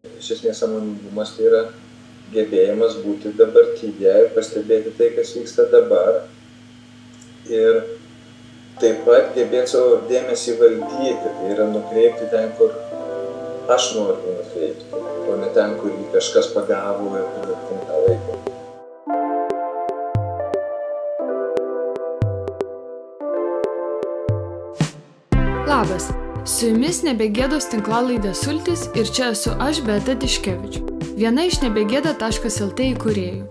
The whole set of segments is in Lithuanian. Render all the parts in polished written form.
Iš esmės sąmoningumas tai yra gebėjimas būti dabartyje ir pastebėti tai, kas vyksta dabar. Ir taip pat gebėti savo dėmesį valdyti, tai yra nukreipti ten, kur aš noriu nukreipti, o ne ten, kur jį kažkas pagavo ir kur tą laiką. Labas, su jumis Nebegėdos tinklalaidė Sultis ir čia esu aš, Beata Tiškevič, viena iš nebegėda.lt įkūrėjų.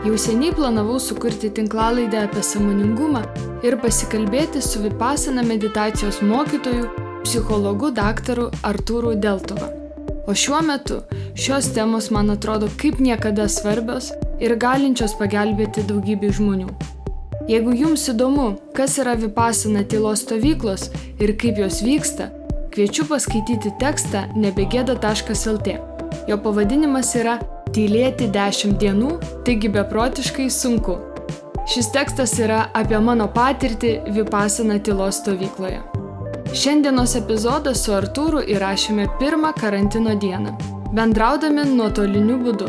Jau seniai planavau sukurti tinklalaidę apie sąmoningumą ir pasikalbėti su Vipassana meditacijos mokytoju, psichologu daktaru Artūru Deltuva. O šiuo metu šios temos man atrodo kaip niekada svarbios ir galinčios pagelbėti daugybei žmonių. Jeigu jums įdomu, kas yra Vipassana tylos stovyklos ir kaip jos vyksta, kviečiu paskaityti tekstą nebegėda.lt. Jo pavadinimas yra Tylėti 10 dienų, taigi beprotiškai sunku. Šis tekstas yra apie mano patirtį Vipassana tylos stovykloje. Šiandienos epizodą su Artūru įrašėme pirmą karantino dieną, bendraudami nuotoliniu būdu.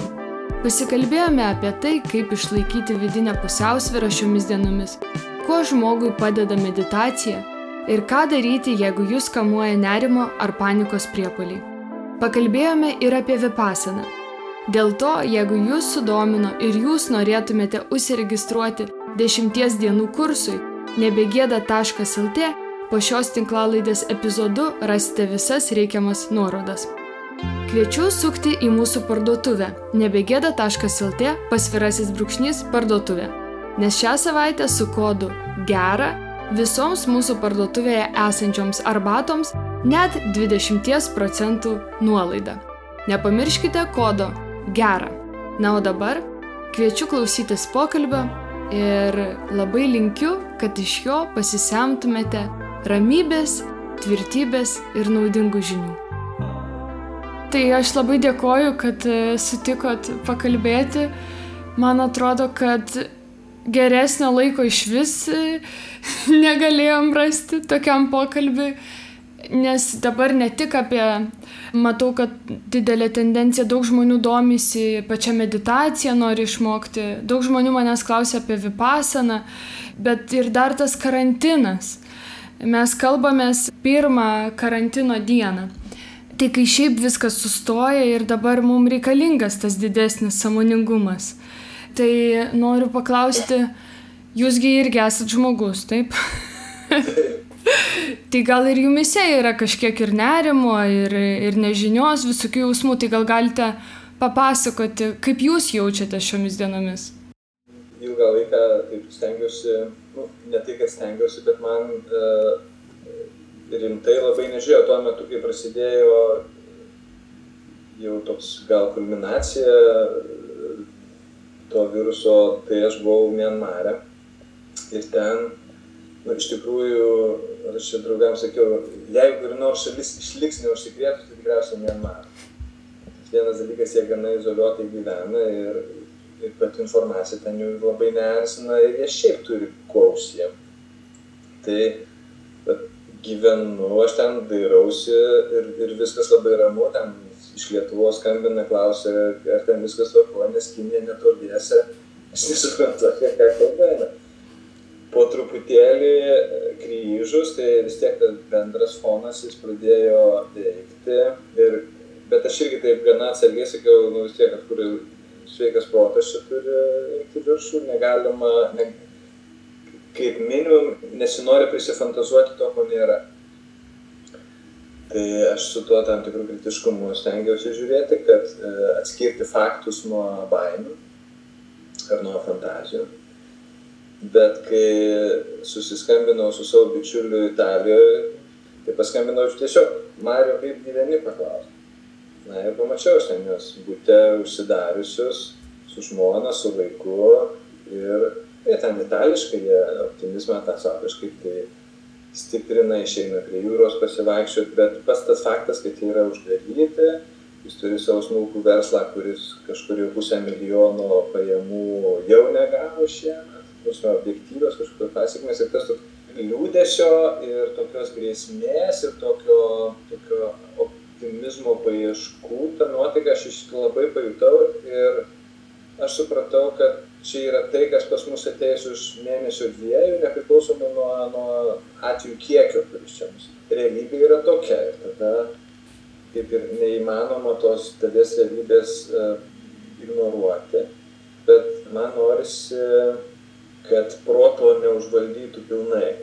Pasikalbėjome apie tai, kaip išlaikyti vidinę pusiausvyrą šiomis dienomis, kuo žmogui padeda meditacija ir ką daryti, jeigu jūs kamuoja nerimo ar panikos priepuoliai. Pakalbėjome ir apie Vipassaną. Dėl to, jeigu jūs sudomino ir jūs norėtumėte užsiregistruoti 10 dienų kursui nebegėda.lt, po šios tinklalaidės epizodu rasite visas reikiamas nuorodas. Kviečiu sukti į mūsų parduotuvę nebegėda.lt /parduotuvė, nes šią savaitę su kodu GERA visoms mūsų parduotuvėje esančioms arbatoms net 20% nuolaida. Nepamirškite kodo GERA. Na o dabar kviečiu klausytis pokalbio ir labai linkiu, kad iš jo pasisemtumėte ramybės, tvirtybės ir naudingų žinių. Tai aš labai dėkoju, kad sutikot pakalbėti. Man atrodo, kad geresnio laiko išvis negalėjom rasti tokiam pokalbiui, nes dabar ne tik matau, kad didelė tendencija, daug žmonių domisi pačia meditacija, nori išmokti, daug žmonių manęs klausia apie Vipassaną, bet ir dar tas karantinas. Mes kalbamės pirmą karantino dieną. Tai kai šiaip viskas sustoja ir dabar mums reikalingas tas didesnis sąmoningumas. Tai noriu paklausti, jūsgi irgi esat žmogus, taip? Tai gal ir jumise yra kažkiek ir nerimo, ir nežinios, visokių jausmų, tai gal galite papasakoti, kaip jūs jaučiate šiomis dienomis? Ilgą laiką taip stengiuosi, ne tai, kad stengiuosi, bet man rimtai labai nežiūrėjau tuo metu, kai prasidėjo jau toks gal kulminacija to viruso, tai aš buvau Mianmare. Ir ten, iš tikrųjų, aš čia draugams sakiau, jeigu ir nors šalis išliks neužsikrėtus, tai tikriausiai Mianmare. Vienas dalykas, jie gana izoliuotai gyvena ir pati informacija ten jų labai neerzina ir jie šiaip turi kuo užsiimti. Tai gyvenu, aš ten dairausi ir viskas labai ramu, ten iš Lietuvos skambina, klausia, ar ten viskas tvarkoja, nes Kinija netoliese, aš nesuprantu, ką kalbame. Po truputėlį grįžus, tai vis tiek tas bendras fonas jis pradėjo veikti, bet aš irgi taip gana atsargiai sakiau, vis tiek, kad kur sveikas protas čia turi eiti viršų, negalima, kaip minimum, nesinori prisifantazuoti to, ko nėra. Tai aš su tuo tam tikrų kritiškumu stengiausi žiūrėti, kad atskirti faktus nuo baimių ar nuo fantazijų. Bet kai susiskambinau su savo bičiuliu Italijoje, tai paskambinau tiesiog, Mario, kaip gyveni, paklausti. Na ir pamačiau aš ten juos bute užsidariusius, su žmona, su vaiku ir ten itališkai, jie optimizmą tą savo kažkaip tai stiprina, išeina prie jūros pasivaikščioti, bet pats tas faktas, kad jie yra uždaryti, jis turi savo smulkų verslą, kuris kažkur jau 500 000 pajamų jau negavo šiemet, objektyvios kažkokios pasekmės ir tas liūdesio ir tokios grėsmės ir tokio optimizmo paieškų, tą nuotaiką aš labai pajutau ir aš supratau, kad čia yra tai, kas pas mus ateis už mėnesio 2, nepriklausomai nuo atvejų kiekio, kuris čia mus. Realybė yra tokia ir tada kaip ir neįmanoma tos dalies realybės ignoruoti, bet man norisi, kad proto neužvaldytų pilnai.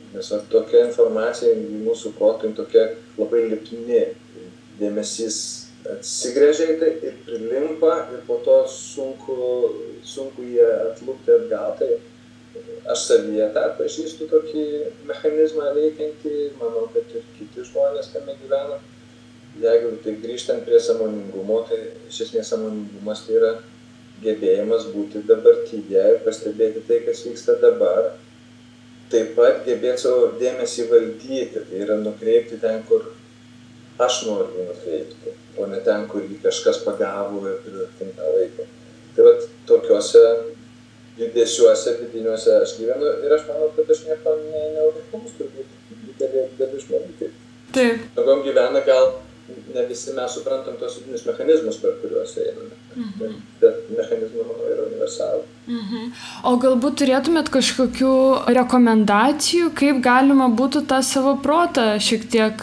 Nes tokia informacija mūsų protui tokia labai lipni, dėmesys atsigręžia į tai ir prilimpa ir po to sunku jį atlupti atgal. Tai aš savyje tą pažįstu tokį mechanizmą veikiantį, manau, kad ir kiti žmonės tame gyvena. Jeigu tai grįžtant prie sąmoningumo, tai iš esmės sąmoningumas tai yra gebėjimas būti dabartyje ir pastebėti tai, kas vyksta dabar. Taip pat gebėti savo dėmesį valdyti, tai yra nukreipti ten, kur aš noriu jį nukreipti, o ne ten, kur jį kažkas pagavo ir pritinka laiko. Tai vat tokiuose judesiuose vidiniuose aš gyvenu ir aš manau, kad aš nieko neužklausiu, turbūt didelė žmonių. Taip. Tokiom gyvena gal ne visi mes suprantam tos vidinius mechanizmus, per kuriuos einame. Bet mechanizmai, manau, yra universalų. O galbūt turėtumėt kažkokių rekomendacijų, kaip galima būtų tą savo protą šiek tiek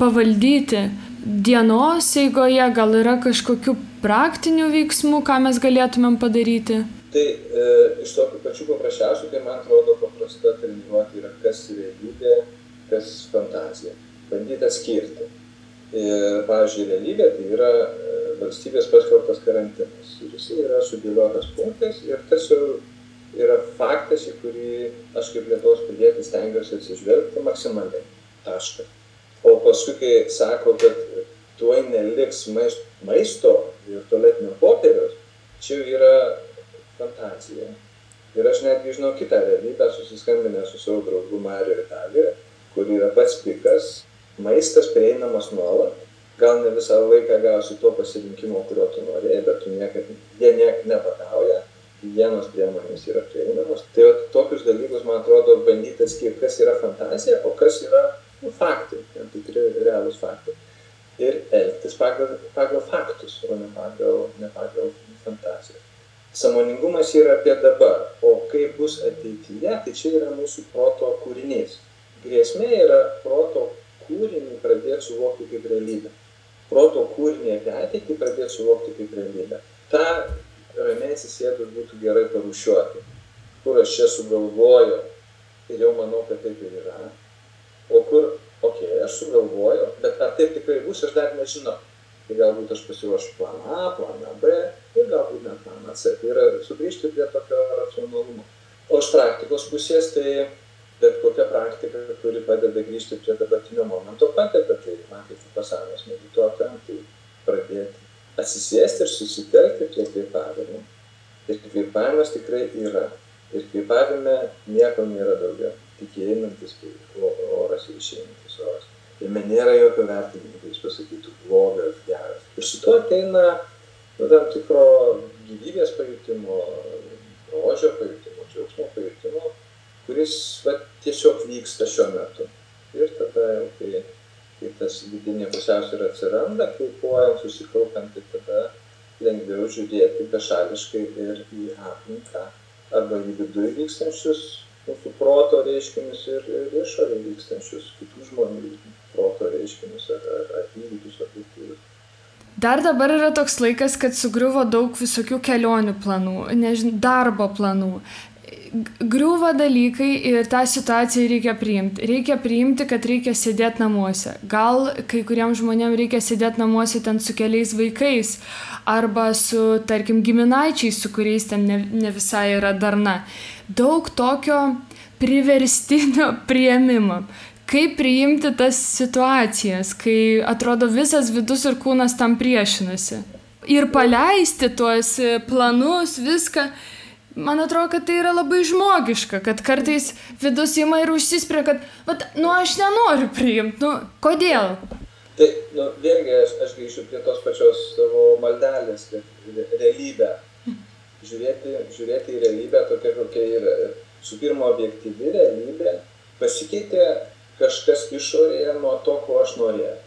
pavaldyti dienos eigoje, gal yra kažkokių praktinių veiksmų, ką mes galėtumėm padaryti? Tai iš tokių pačių paprasčiausių, tai man atrodo paprasta treniruoti yra kas realybė, kas fantazija. Bandyti atskirti. Ir, pavyzdžiui, realybė tai yra valstybės paskelbtas karantinas. Ir jis yra sudėliotas punktais ir tas jau yra faktas, į kurį aš kaip Lietuvos pilietis stengiuosi atsižvelgti maksimaliai. Taškas. O paskui, kai sako, kad tuoj neliks maisto ir tualetinio popieriaus, čia jau yra fantazija. Ir aš netgi žinau kitą realybę, susiskambinęs su savo draugu Mariu Italijoje, kur yra pats pikas. Maistas prieinamas nuolat, gal ne visą laiką gausi to pasirinkimo, kurio tu norėjai, bet jie nepatauja, higienos priemonės yra prieinamos. Tai tokius dalykus, man atrodo, bandyti atskirti, kas yra fantazija, o kas yra faktai, tikri realūs faktai. Ir elgtis pagal faktus, o ne pagal fantaziją. Sąmoningumas yra apie dabar, o kaip bus ateityje, tai čia yra mūsų proto kūrinys. Grėsmė yra proto kūrinį pradėti suvokti kaip realybę. Proto kūrinį apie ateitį pradėti suvokti kaip realybę. Ta ramiai atsisėdus būtų gerai parūšiuoti, kur aš čia sugalvoju ir jau manau, kad taip ir yra. O kur, aš sugalvoju, bet ar taip tikrai bus, aš dar nežinau. Tai galbūt aš pasiruošiu planą A, planą B ir galbūt net planą C. Tai yra sugrįžti prie tokio racionalumo. O iš praktikos pusės, tai bet kokia praktika, kuri padeda grįžti prie dabartinio momento, padeda, tai man kaip pasaulės medituotojam, tai pradėti atsisėsti ir susitelkti prie kvėpavimo. Ir kvėpavimas tikrai yra. Ir kvėpavime nieko nėra daugiau. Tik įeinantis oras ir išeinantis oras. Jame nėra jokio vertinimo, kai jis pasakytų blogas, geras. Ir su to ateina tam tikro gyvybės pajutimo, grožio pajutimo, džiaugsmo pajutimo, kuris tiesiog vyksta šiuo metu. Ir tada jau, kai tas vidinė pusiausvyra atsiranda, kvėpuojant, susikaupiant, tai tada lengviau žiūrėti bešališkai ir į aplinką, arba į viduje vykstančius mūsų proto reiškinius ir išorėje vykstančius kitų žmonių proto reiškinius ar įvykius objektyvius. Dar dabar yra toks laikas, kad sugriuvo daug visokių kelionių planų, darbo planų. Griūva dalykai ir tą situaciją reikia priimti. Reikia priimti, kad reikia sėdėti namuose. Gal kai kuriems žmonėms reikia sėdėti namuose ten su keliais vaikais arba su, tarkim, giminaičiais, su kuriais ten ne visai yra darna. Daug tokio priverstinio priėmimo. Kaip priimti tas situacijas, kai atrodo visas vidus ir kūnas tam priešinasi. Ir paleisti tuos planus, viską. Man atrodo, kad tai yra labai žmogiška, kad kartais vidus ima ir užsispria, kad, aš nenoriu priimti, kodėl? Tai, vėlgi, aš grįšiu prie tos pačios savo maldelės, kad realybę. Žiūrėti į realybę tokia, kokia yra. Su pirma, objektyvi realybė pasikeitė kažkas išorėje nuo to, ko aš norėjau.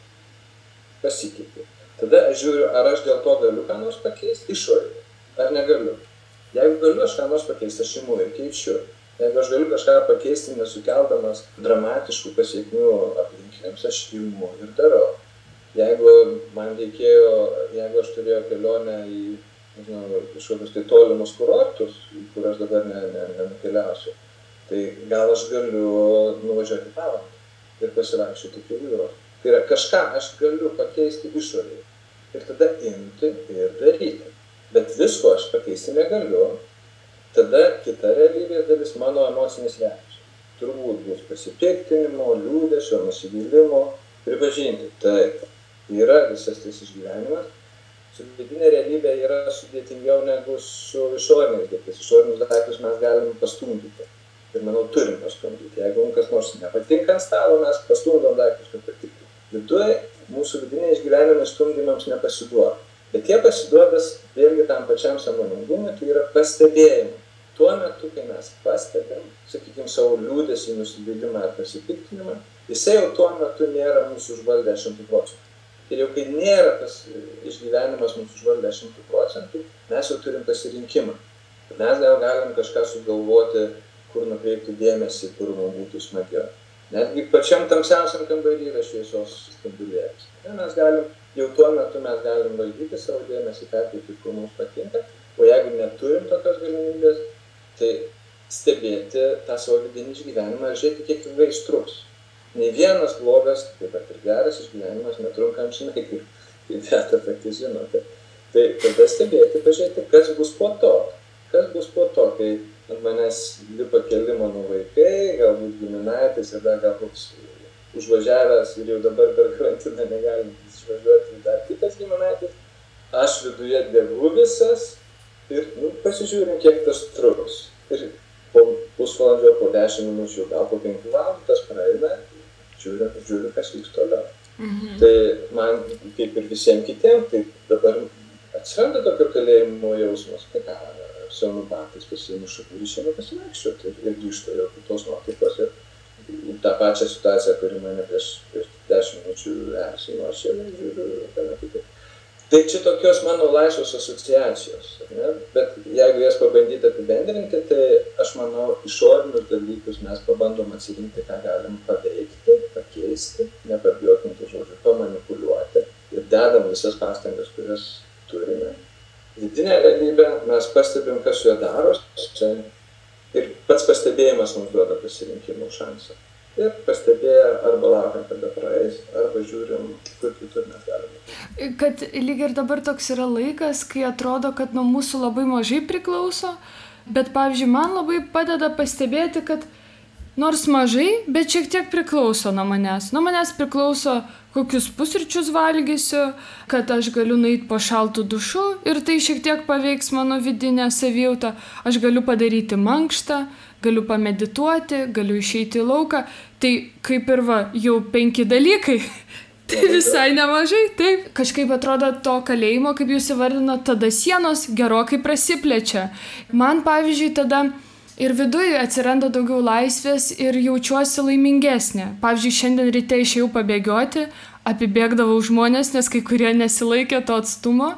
pasikeitė. Tada aš žiūriu, ar aš dėl to galiu ką nors pakeisti išorėje, ar negaliu. Jeigu galiu aš ką nors pakeisti, aš imu ir keičiu. Jeigu aš galiu kažką pakeisti, nesukeldamas dramatiškų pasiekmių aplinkiniams, aš imu ir darau. Jeigu aš turėjau kelionę į kažkokius tai tolimus kurortus, kur aš dabar nenukeliausiu, tai gal aš galiu nuvažiuoti Palangą ir pasivaikščioti prie jūros. Tai yra, kažką aš galiu pakeisti išorėje ir tada imti ir daryti. Bet visko aš pakeisti negaliu. Tada kita realybės dalis mano emocinis reakcija. Turbūt bus pasipiktinimo, liūdesio, nusivylimo, pripažinti. Taip, yra visas tas išgyvenimas. Su vidinė realybė yra sudėtingiau negu su išoriniais daiktais. Išorinius daiktus mes galim pastumdyti. Ir manau, turim pastumdyti. Jeigu kas nors nepatinka ant stalo, mes pastumdom daiktus, kad patiktų. Viduje mūsų vidiniai išgyvenimai stumdymams nepasiduoda. Bet jie pasiduodas vėlgi tam pačiam sąmoningumui, tai yra pastebėjimui. Tuo metu, kai mes pastebėm, sakykime, savo liūdesį, nusivylimą ar pasipiktinimą, jisai jau tuo metu nėra mūsų užvaldę 100%. Ir jau kai nėra tas išgyvenimas mūsų užvaldę 100%, mes jau turim pasirinkimą. Mes gal galim kažką sugalvoti, kur nukreipti dėmesį, kur mums būtų smagiau. Netgi pačiam tamsiausiam kambarį yra šviesos spindulėlis. Jau tuo metu mes galim valdyti savo dėmesį, perteikti, kur mums patinka, o jeigu neturim tokios galimybės, tai stebėti tą savo vidinį išgyvenimą ir žiūrėti, kiek ilgai jis truks. Nei vienas blogas, taip pat ir geras išgyvenimas netrunka amžinai, kaip Beata pati žinote. Tai tada stebėti, pažiūrėti, kas bus po to. Kas bus po to, kai ant manęs lipa keli mano vaikai, galbūt giminaitis ir dar galbūt užvažiavęs ir jau dabar per karantiną negalintis išvažiuoti dar kitas giminaitis. Aš viduje degu visas ir pasižiūrim, kiek tas truks. Ir po pusvalandžio, po 10 minučių, gal po 5 valandų tas praeina, žiūriu, kas vyks toliau. Tai man, kaip ir visiems kitiems, tai dabar atsiranda tokio kalėjimo jausmas, tai ką, senų batais pasiimu šakų ir išeinu pasivaikščioti ir grįžtu jau kitos nuotaikos ir tą pačią situaciją, kuri mane prieš 10 minučių erzino, aš jau žiūriu gana kitaip. Tai čia tokios mano laisvos asociacijos, ne? Bet jeigu jas pabandyti apibendrinti, tai aš manau, išorinius dalykus mes pabandom atsirinkti, ką galim paveikti, pakeisti, nepabijokim tų žodžių, pamanipuliuoti ir dedam visas pastangas, kurias turime. Vidinė realybė, mes pastebim, kas su juo darosi ir pats pastebėjimas mums duoda pasirinkimo šansą. Ir pastebėję arba laukiam, kada praeis, arba žiūrim, kur kitur mes galime. Kad lyg ir dabar toks yra laikas, kai atrodo, kad nuo mūsų labai mažai priklauso, bet, pavyzdžiui, man labai padeda pastebėti, kad nors mažai, bet šiek tiek priklauso nuo manęs. Nuo manęs priklauso, kokius pusryčius valgysiu, kad aš galiu nueiti po šaltų dušu ir tai šiek tiek paveiks mano vidinę savijautą. Aš galiu padaryti mankštą, galiu pamedituoti, galiu išeiti į lauką. Tai kaip ir jau 5 dalykai. Tai visai nemažai, taip. Kažkaip atrodo to kalėjimo, kaip jūs įvardinot, tada sienos gerokai prasiplečia. Man, pavyzdžiui, tada ir viduje atsiranda daugiau laisvės ir jaučiuosi laimingesnė. Pavyzdžiui, šiandien ryte išėjau pabėgioti, apibėgdavau žmonės, nes kai kurie nesilaikė to atstumo.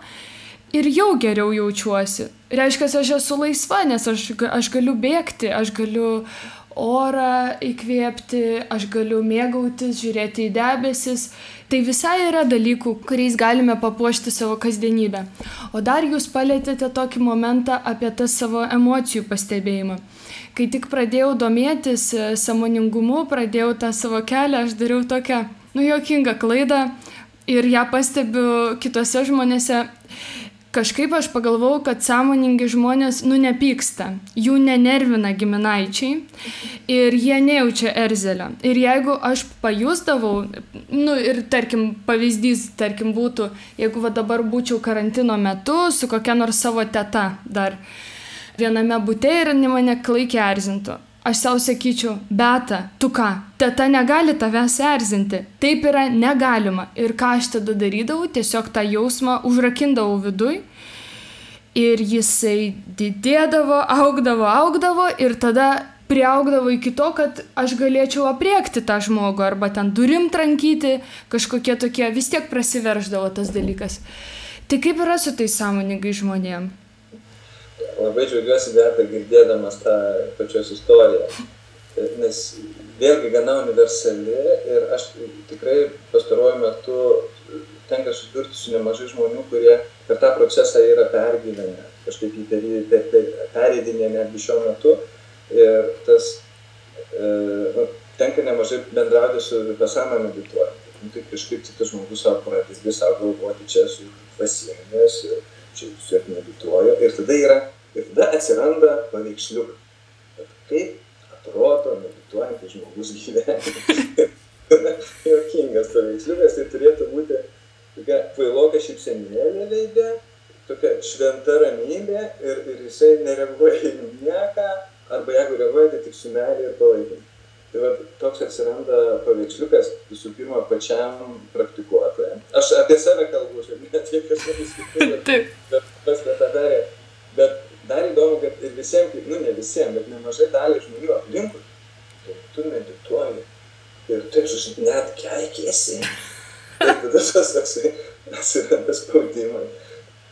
Ir jau geriau jaučiuosi. Reiškia, aš esu laisva, nes aš galiu bėgti, aš galiu orą įkvėpti, aš galiu mėgautis, žiūrėti į debesis. Tai visai yra dalykų, kuriais galime papuošti savo kasdienybę. O dar jūs palėtėte tokį momentą apie tą savo emocijų pastebėjimą. Kai tik pradėjau domėtis sąmoningumu, pradėjau tą savo kelią, aš dariau tokią, juokingą klaidą ir ją pastebiu kitose žmonėse. Kažkaip aš pagalvojau, kad sąmoningi žmonės, nepyksta, jų nenervina giminaičiai ir jie nejaučia erzelio. Ir jeigu aš pajusdavau, ir tarkim, pavyzdys, būtų, jeigu dabar būčiau karantino metu su kokia nors savo teta dar viename bute ir mane klaikiai erzintų. Aš savo sakyčiau, Beata, tu ką, teta negali tavęs erzinti. Taip yra negalima. Ir ką aš tada darydavau, tiesiog tą jausmą užrakindavau viduj. Ir jisai didėdavo, augdavo ir tada priaugdavo iki to, kad aš galėčiau aprėkti tą žmogų arba ten durim trankyti, kažkokie tokie, vis tiek prasiverždavo tas dalykas. Tai kaip yra su tais sąmoningai žmonėm? Labai džiaugiuosi, Beata, girdėdamas tą pačios istoriją, nes vėlgi gana universali ir aš tikrai pastaruoju metu tenka susidurti su nemažai žmonių, kurie per tą procesą yra pergyvenę, kažkaip pereidinė netgi šiuo metu. Ir tas tenka nemažai bendrauti su Vipassana medituojant. Tai kažkaip kitas žmogus savo pradedi savo galvoti, čia esu dvasingas, čia su medituoju. Ir tada atsiranda paveiksliukai. Kaip atrodo medituojantis žmogus gyvenime. Juokingas paveiksliukas, tai turėtų būti tokia kvailoka šypsenėlė veide, tokia šventa ramybė ir jisai nereaguoja į nieką, arba jeigu reaguoja, tai tik su meilė ir palaikymu. Tai va, toks atsiranda paveiksliukas visų pirma pačiam praktikuotojam. Aš apie save kalbu, net tiek kažkas kitų, bet dar įdomu, kad ir visiems, ne visiems, bet nemažai dalį žmonių aplinkui, tu medituoji ir taip net keikiesi. Ir tada tas toksai atsiranda spaudimas.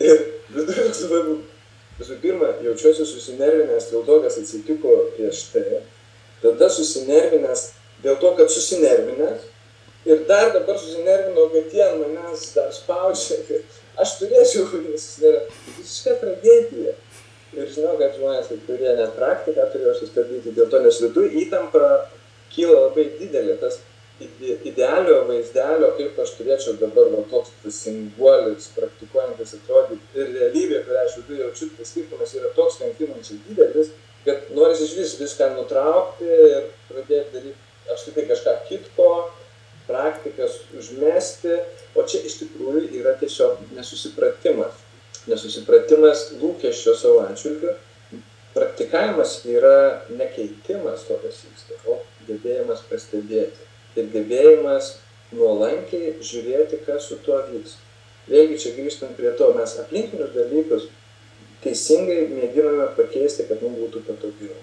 Ir visų pirma, jaučiuosi susinervinęs dėl to, kas atsitiko prieš tai. Tada susinervinęs dėl to, kad susinervinęs. Ir dar dabar susinervinau, kad jie ant manęs dar spaudžia. Aš turėčiau susinervinti. Visiška tragedija. Ir žinau, kad žmonės, kurie net praktiką turėjo sustabdyti dėl to, nes viduje įtampa kyla labai didelė. Tas idealio vaizdelio, kaip aš turėčiau dabar toks simbolis, praktikuojantis atrodyti. Ir realybė, kurią aš viduje jaučiu, tai skirtumas yra toks kankinančiai didelis, kad norisi iš viską nutraukti ir pradėti daryti apskritai kažką kitko, praktikas užmesti, o čia iš tikrųjų yra tiesiog nesusipratimas. Nesusipratimas lūkesčio savo atžvilgiu. Praktikavimas yra nekeitimas to, kas vyksta, o gebėjimas pastebėti. Ir gebėjimas nuolankiai žiūrėti, kas su tuo vyks. Vėlgi čia grįžtant prie to, mes aplinkinius dalykus teisingai mėginame pakeisti, kad mums būtų patogiau.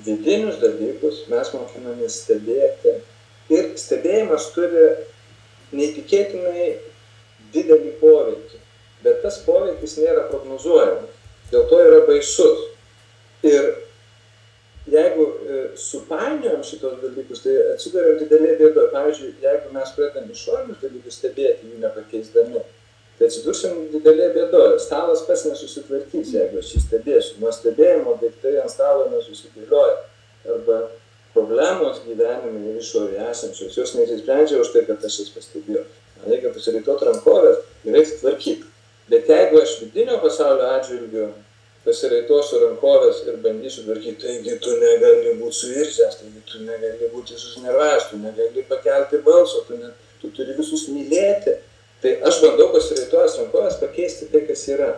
Vidinius dalykus mes mokinamės stebėti ir stebėjimas turi neįtikėtinai didelį poveikį, bet tas poveikis nėra prognozuojamas, dėl to yra baisus. Ir jeigu supainiojam šitos dalykus, tai atsiduriam didelė bėda. Pavyzdžiui, jeigu mes pradedam išorinius dalykus stebėti, jų nepakeisdami, tai atsidursim didelė bėda. Stalas pats nesusitvarkys, jeigu aš jį stebėsiu. Nuo stebėjimo daiktai ant stalo nesusidėlioja. Arba problemos gyvenime išorėje esančios, jos neįsisprendžia už tai, kad aš jas pastebėjau. Man reikia pasirinkti rankovės ir reikia tvarkyti. Bet jeigu aš vidinio pasaulio atžvilgiu pasiraitosiu rankovės ir bandysiu tvarkyti, taigi tu negali būti suirzęs, taigi tu negali būti susinervęs, tu negali pakelti balso, tu turi visus mylėti. Tai aš bandau pasiraitojęs rankovės pakeisti tai, kas yra.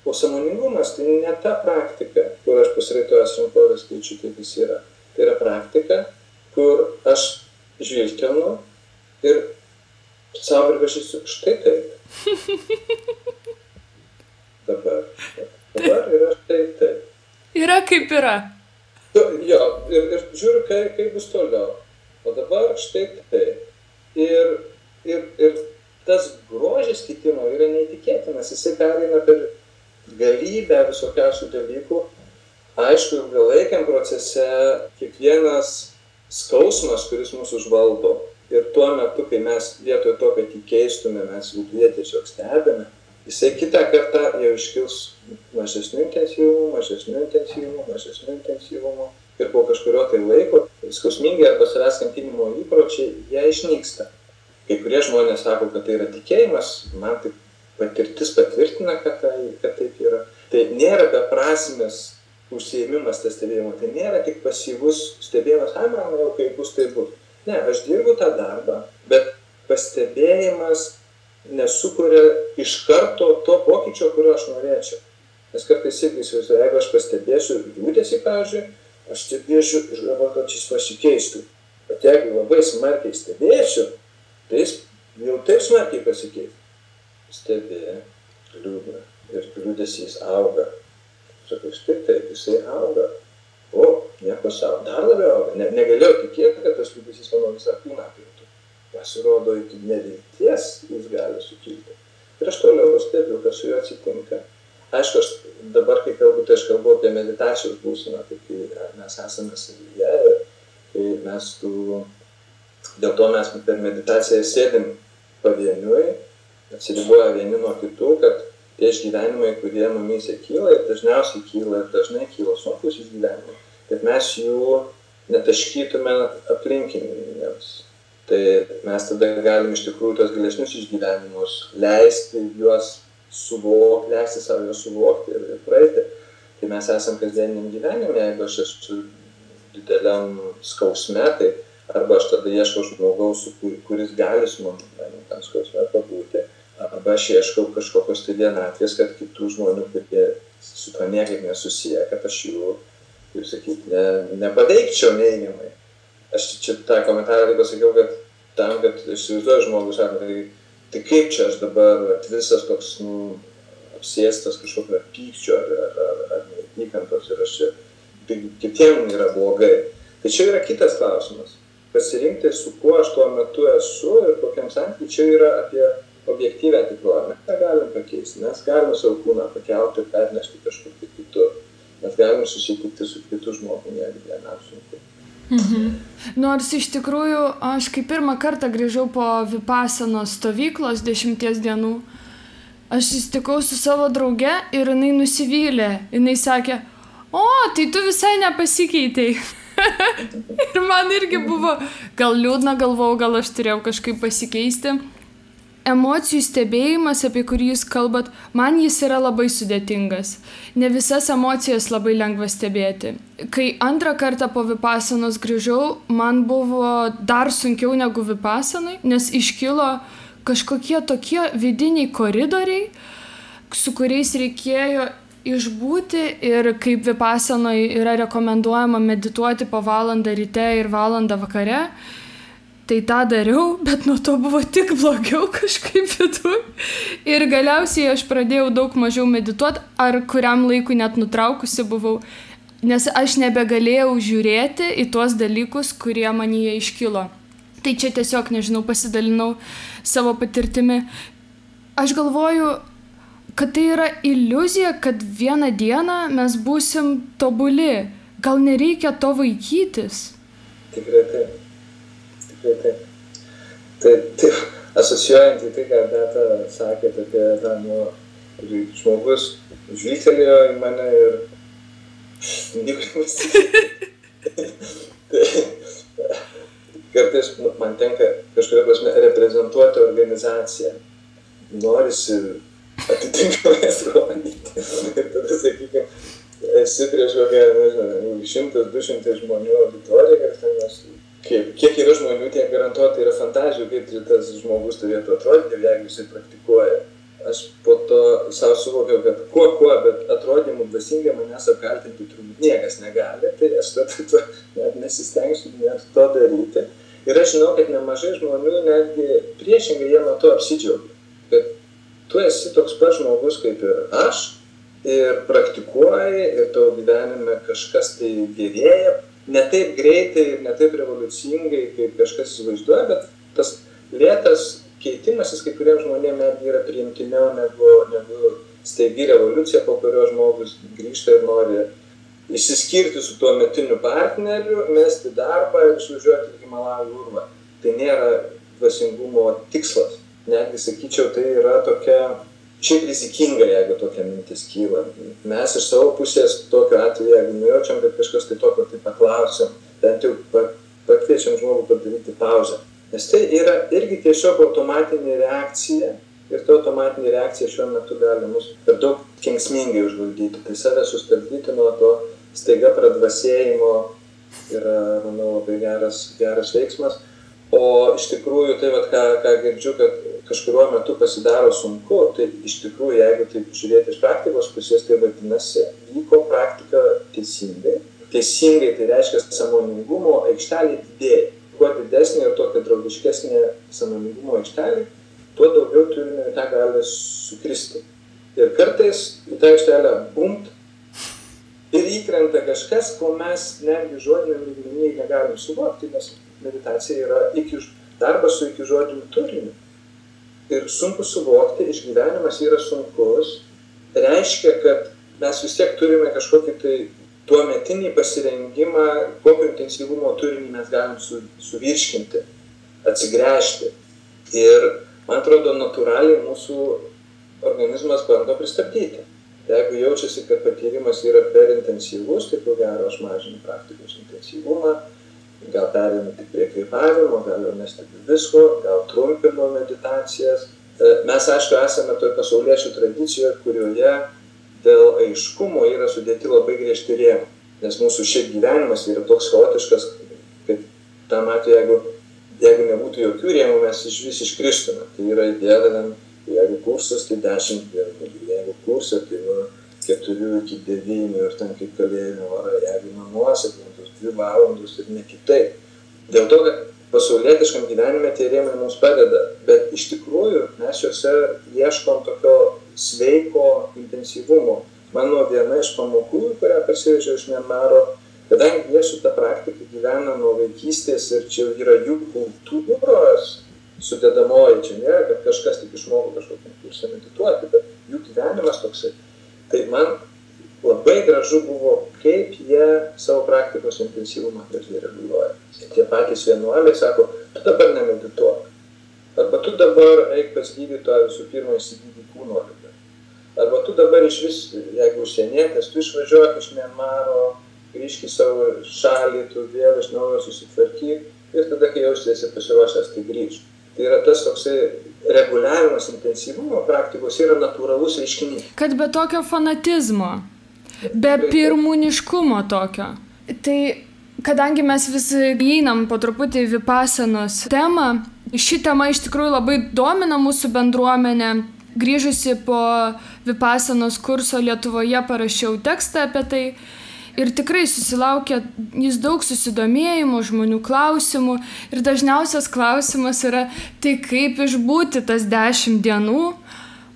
O sąmoningumas tai ne ta praktika, kur aš pasiraitojęs rankovės keičiu tai, kas yra. Tai yra praktika, kur aš žvilgtelnu ir savo pripažįstu, štai taip. Dabar yra štai taip. Yra kaip yra. Jo, ir žiūriu, kaip bus toliau. O dabar štai taip. Ir tas grožis kitimo yra neįtikėtinas. Jisai pereina per galybę visokiausių dalykų. Aišku, ilgalaikiam procese kiekvienas skausmas, kuris mūsų užvaldo. Ir tuo metu, kai mes vietoj to, kad jį keistume, mes viduje tiesiog stebime, jisai kitą kartą jau iškils mažesniu intensyvumu ir po kažkurio tai laiko skausmingi arba savęs kankinimo įpročiai, jie išnyksta. Kai kurie žmonės sako, kad tai yra tikėjimas, man tai patirtis patvirtina, kad taip yra. Tai nėra beprasmės užsiėmimas tas stebėjimas, tai nėra tik pasyvus stebėjimas, man jau kaip bus, tai bus. Ne, aš dirbu tą darbą, bet pastebėjimas nesukuria iš karto to pokyčio, kurio aš norėčiau. Nes kartais irgi įsivaizduoju, jeigu aš pastebėsiu liūdesį, pavyzdžiui, aš stebėsiu ir galvoju, kad šis pasikeistų. Bet jeigu labai smarkiai stebėsiu, tai jis jau taip smarkiai pasikeis. Stebė, liūdna ir liūdesys auga. Sakau, štai taip, jisai auga. O, nieko savo, dar labiau auga. Negalėjau tikėti, kad tas liūdesys mano visą kūną apimtų. Pasirodo, iki nevilties jis gali sukilti. Ir aš toliau stebiu, kas su juo atsitinka. Aišku, aš dabar, kai kalbu, tai aš kalbu apie meditacijos būseną, tai kai mes esame savyje ir kai mes dėl to mes per meditaciją sėdim pavieniui, atsiriboja vieni nuo kitų, kad tie išgyvenimai, kurie mumyse kyla ir dažniausiai kyla ir dažnai kyla sunkus išgyvenimai, kad mes jų netaškytume aplinkiniams. Tai mes tada galim iš tikrųjų tos gilesnius išgyvenimus leisti juos suvokti, leisti savo juos suvokti ir praeiti. Tai mes esam kasdieniniam gyvenime, jeigu aš esu dideliam skausme, tai arba aš tada ieškau žmogaus, kuris gali su manimi tam skausme pabūti, arba aš ieškau kažkokios tai vienatvės, kad kitų žmonių, kurie su to niekaip nesusiję, kad aš jų, kaip sakyti, nepaveikčiau neigiamai. Aš čia tą komentarą pasakiau, kad tam, kad įsivaizduoju žmogus, sako, tai kaip čia aš dabar visas toks, apsėstas kažkokio pykčio ar neapykantos ir aš čia, tai kitiem yra blogai. Tai čia yra kitas klausimas. Pasirinkti, su kuo aš tuo metu esu ir kokiam santykiui, čia yra apie objektyvę tikrovę. Mes negalim pakeisti, mes galim savo kūną pakelti ir pernešti kažkur kitur. Mes galim susitikti su kitu žmogumi, jeigu vienam sunku. Nors iš tikrųjų, aš kai pirmą kartą grįžau po Vipassanos stovyklos 10 dienų, aš susitikau su savo drauge ir jinai nusivylė. Jinai sakė, tai tu visai nepasikeitei. Ir man irgi buvo gal liūdna, galvojau, gal aš turėjau kažkaip pasikeisti. Emocijų stebėjimas, apie kurį jūs kalbat, man jis yra labai sudėtingas. Ne visas emocijas labai lengva stebėti. Kai antrą kartą po Vipassanos grįžau, man buvo dar sunkiau negu Vipassanai, nes iškilo kažkokie tokie vidiniai koridoriai, su kuriais reikėjo išbūti ir kaip Vipassanoje yra rekomenduojama medituoti po valandą ryte ir valandą vakare. Tai tą dariau, bet nuo to buvo tik blogiau kažkaip viduj. Ir galiausiai aš pradėjau daug mažiau medituoti, ar kuriam laikui net nutraukusi buvau, nes aš nebegalėjau žiūrėti į tuos dalykus, kurie manyje iškilo. Tai čia tiesiog, nežinau, pasidalinau savo patirtimi. Aš galvoju, kad tai yra iliuzija, kad vieną dieną mes būsim tobuli. Gal nereikia to vaikytis? Tikrai taip. Tai asocijuojant į tai, ką Beata sakė apie tą, žmogus žvilgtelėjo į mane ir nieko nesikėti. Kartais man tenka kažkuria prasme reprezentuoti organizaciją. Norisi atitinkamai sklandyti. Ir tada, sakykime, esi prieš kokią, nežinau, 100-200 žmonių auditoriją, ir ten mes kiek yra žmonių, tiek garantuotai yra fantazijų, kaip tas žmogus turėtų atrodyti, jeigu jisai praktikuoja. Aš po to savo suvokiau, kad kuo, bet atrodymų dvasingai manęs apkaltinti turbūt niekas negali, tai aš tada net nesistengsiu net to daryti. Ir aš žinau, kad nemažai žmonių netgi priešingai jie nuo to apsidžiaugia, kad tu esi toks pat žmogus kaip ir aš ir praktikuoji ir tavo gyvenime kažkas tai gerėja. Ne taip greitai ir ne taip revoliucingai, kaip kažkas įsivaizduoja, bet tas lėtas keitimasis kai kuriems žmonėms netgi yra priimtiniau negu staigi revoliucija, po kurio žmogus grįžta ir nori išsiskirti su tuo metiniu partneriu, mesti darbą ir išvažiuoti į Himalajų urvą. Tai nėra dvasingumo tikslas. Netgi, sakyčiau, tai yra tokia šiaip rizikinga, jeigu tokia mintis kyla. Mes iš savo pusės tokiu atveju, jeigu nujaučiam, kad kažkas tai tokio tai paklausiam, bent jau pakviečiam žmogų padaryti pauzę. Nes tai yra irgi tiesiog automatinė reakcija ir ta automatinė reakcija šiuo metu gali mus per daug kenksmingai užvaldyti. Tai save sustabdyti nuo to staiga pradvasėjimo yra, manau, labai geras veiksmas. O iš tikrųjų, tai ką girdžiu, kad kažkuriuo metu pasidaro sunku, tai iš tikrųjų, jeigu taip žiūrėti iš praktikos pusės, tai vadinasi, vyko praktika teisingai. Teisingai tai reiškia sąmoningumo aikštelė didėja. Kuo didesnė ir tokia draugiškesnė sąmoningumo aikštelė, tuo daugiau turime į tą gali sukristi. Ir kartais į tą aikštelę bumt ir įkrenta kažkas, ko mes netgi žodiniam lygmenyje negalim suvokti, nes meditacija yra darbas su iki žodiniu turiniu. Ir sunku suvokti, išgyvenimas yra sunkus, reiškia, kad mes vis tiek turime kažkokį tai tuometinį pasirengimą, kokio intensyvumo turinį mes galim suvirškinti, atsigręžti. Ir, man atrodo, natūraliai mūsų organizmas bando pristabdyti. Jeigu jaučiasi, kad patyrimas yra per intensyvus, tai ko gero aš mažinu praktikos intensyvumą, gal perėmė tik prie kvėpavimo, gal jau nestebiu visko, gal trumpinu meditacijas. Mes, aišku, esame toj pasauliečių tradicijoje, kurioje dėl aiškumo yra sudėti labai griežti rėmai. Nes mūsų šiaip gyvenimas yra toks chaotiškas, kad tam atveju, jeigu nebūtų jokių rėmų, mes vis iškristume. Tai yra idėja, jeigu kursas, tai 10 dienų, jeigu kursas, tai nuo 4 iki 9 ir ten kaip kalėjimo vara, jeigu namuose, 2 valandos ir ne kitaip. Dėl to, kad pasaulietiškam gyvenime tie rėmai mums padeda, bet iš tikrųjų mes juose ieškom tokio sveiko intensyvumo. Mano viena iš pamokų, kurią parsivežiau iš Mianmaro, kadangi jie su ta praktika gyvena nuo vaikystės ir čia yra jų kultūros sudedamoji, čia nėra, kad kažkas tik išmoko kažkokį kursą medituoti, bet jų gyvenimas toksai. Tai man labai gražu buvo, kaip jie savo praktikos intensyvumą gražiai reguliuoja. Tie patys vienuoliai sako, tu dabar nemedituok. Arba tu dabar eik pas gydytoją visų pirma įsigydyti kūno ligą. Arba tu dabar išvis, jeigu užsienietės, tu išvažiuok iš Mianmaro, grįžk į savo šalį, tu vėl iš naujo susitvarkyk ir tada, kai jausiesi pasiruošęs, tai grįžk. Tai yra tas toksai reguliavimas intensyvumo praktikos yra natūralus reiškinys. Kad be tokio fanatizmo, be pirmūniškumo tokio. Tai kadangi mes vis įeinam po truputį į vipasanos temą, ši tema iš tikrųjų labai domina mūsų bendruomenę. Grįžusi po vipasanos kurso Lietuvoje parašiau tekstą apie tai ir tikrai susilaukė jis daug susidomėjimų, žmonių klausimų ir dažniausias klausimas yra, tai kaip išbūti tas 10 dienų,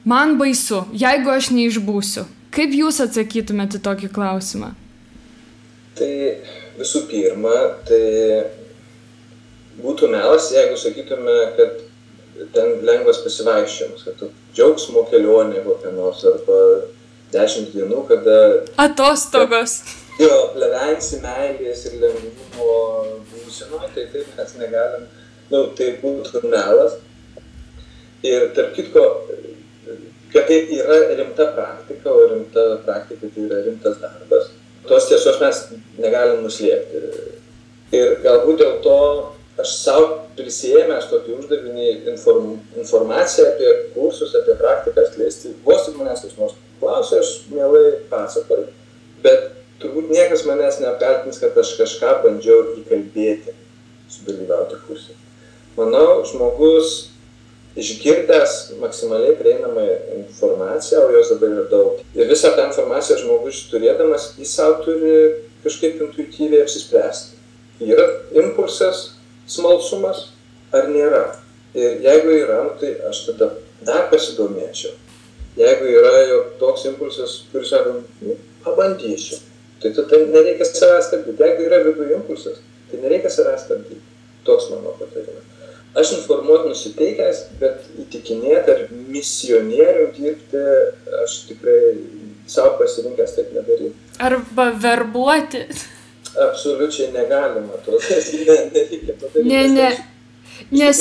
man baisu, jeigu aš neišbūsiu. Kaip jūs atsakytumėte tokį klausimą? Tai visų pirma, tai būtų melas, jeigu sakytume, kad ten lengvas pasivaikščiojimas, kad tu džiaugsmo kelionė kokia nors, arba 10 dienų, kada... Atostogos. Jo, plevensi meilės ir lengvumo būsenoje, tai taip mes negalim, tai būtų melas. Ir tarp kitko, kad tai yra rimta praktika, o rimta praktika tai yra rimtas darbas. Tos tiesos mes negalim nuslėpti. Ir galbūt dėl to aš savo prisėmęs tokį uždavinį informaciją apie kursus, apie praktiką skleisti. Vos tik manęs kas nors klausia, aš mielai pasakoju. Bet turbūt niekas manęs neapkaltins, kad aš kažką bandžiau įkalbėti, sudalyvauti kursą. Manau, žmogus išgirdęs maksimaliai prieinamą informaciją, o jos dabar yra daug. Ir visą tą informaciją žmogus turėdamas, jis savo turi kažkaip intuityviai apsispręsti. Yra impulsas, smalsumas ar nėra. Ir jeigu yra, tai aš tada dar pasidomėčiau. Jeigu yra jau toks impulsas, kuris sako, pabandysiu, tai tada nereikia savęs stabdyti. Jeigu yra viduje impulsas, tai nereikia savęs stabdyti. Toks mano patarimas. Aš informuoti nusiteikęs, bet įtikinėti ar misionierių dirbti, aš tikrai savo pasirinkęs taip nedaryti. Arba verbuoti. Absoliučiai negalima to. Nereikia padaryti. Ne. Nes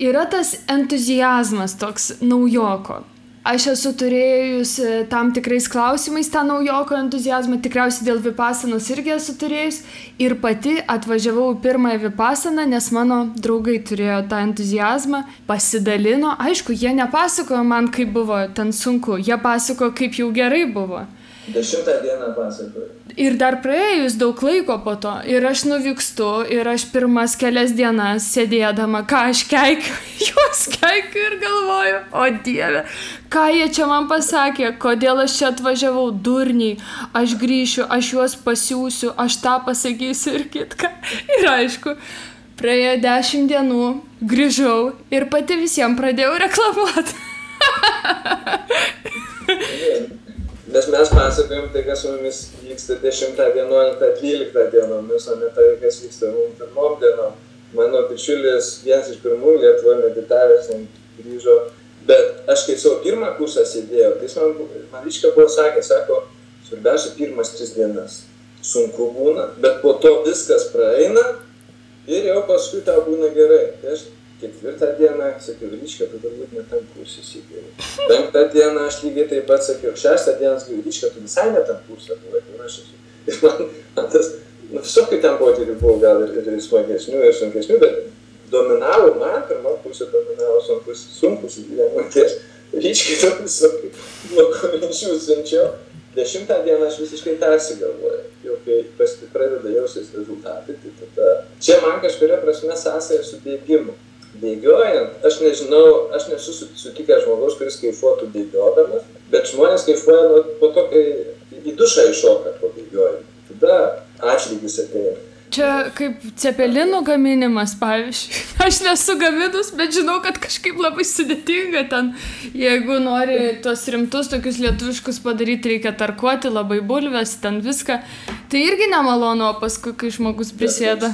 yra tas entuziazmas toks naujoko. Aš esu turėjus tam tikrais klausimais tą naujoko entuziazmą, tikriausiai dėl vipasanos irgi esu turėjus ir pati atvažiavau pirmąją vipasaną, nes mano draugai turėjo tą entuziazmą, pasidalino, aišku, jie nepasakojo man, kaip buvo ten sunku, jie pasakojo, kaip jau gerai buvo. 10 dieną pasakoju. Ir dar praėjus daug laiko po to, ir aš nuvykstu, ir aš pirmas kelias dienas sėdėdama, ką aš keikiu, juos keikiu ir galvoju, o Dieve, ką jie čia man pasakė, kodėl aš čia atvažiavau, durniai, aš grįšiu, aš juos pasiūsiu, aš tą pasakysiu ir kitką. Ir aišku, praėjo 10 dienų, grįžau ir pati visiems pradėjau reklamuoti. Nes mes pasakojom tai, kas su mumis vyksta 10, 11, 12 dienomis, o ne tai, kas vyksta mums pirmom dienom. Mano bičiulis, vienas iš pirmųjų Lietuvoje meditavęs, grįžo, bet aš kai savo pirmą kursą sėdėjau, tai jis man ryškia buvo sakė, sako, svarbiausia pirmas 3 dienas. Sunku būna, bet po to viskas praeina ir jau paskui tau būna gerai. Tai aš 4 dieną sakiau, ryškia, tu turbūt ne tam kursą sėdėjau. 5 dieną aš lygiai taip pat sakiau, 6 dieną sakiau, ryškia, tu visai ne tam kursą buvai, kur aš esu. Ir man tas, visokių ten potyrių buvo gal ir smagesnių, ir sunkesnių, bet dominavo man, pirmą pusę dominavo sunkus gyvenimą. Tai aš ryškiai to visokių blogų minčių siunčiau. 10 dieną aš visiškai persigalvoju. Jau kai pradeda jausis rezultatai, tai tada... Čia man kažkuria prasme sąsaja su bėgimu. Bėgiojant, aš nežinau, aš nesu sutikęs žmogaus, kuris kaifuotų bėgiodamas, bet žmonės kaifuoja po to, kai į dušą iššoka po bėgiojimą. Tada atlygis ateina. Čia kaip cepelinų gaminimas, pavyzdžiui. Aš nesu gaminus, bet žinau, kad kažkaip labai sudėtinga ten. Jeigu nori tuos rimtus, tokius lietuviškus padaryti, reikia tarkuoti labai bulves, ten viską. Tai irgi nemalonu, o paskui, kai žmogus prisėda.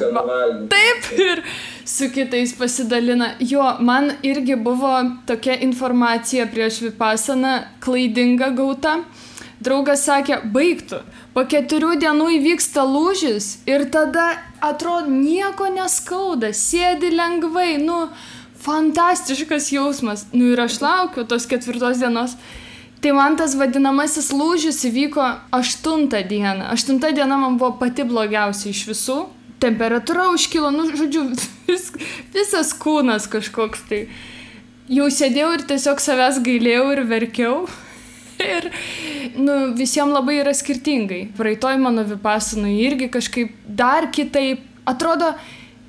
Taip, ir su kitais pasidalina. Jo, man irgi buvo tokia informacija prieš Vipassaną klaidinga gauta. Draugas sakė, baigtų. Po 4 dienų įvyksta lūžis ir tada atrodo nieko neskauda, sėdi lengvai, fantastiškas jausmas. Ir aš laukiu tos 4 dienos. Tai man tas vadinamasis lūžis įvyko 8 dieną. 8 diena man buvo pati blogiausia iš visų. Temperatūra užkilo, žodžiu, visas kūnas kažkoks tai. Jau sėdėjau ir tiesiog savęs gailėjau ir verkiau. Ir visiems labai yra skirtingai. Praeitoj mano Vipassanoj irgi kažkaip dar kitaip. Atrodo,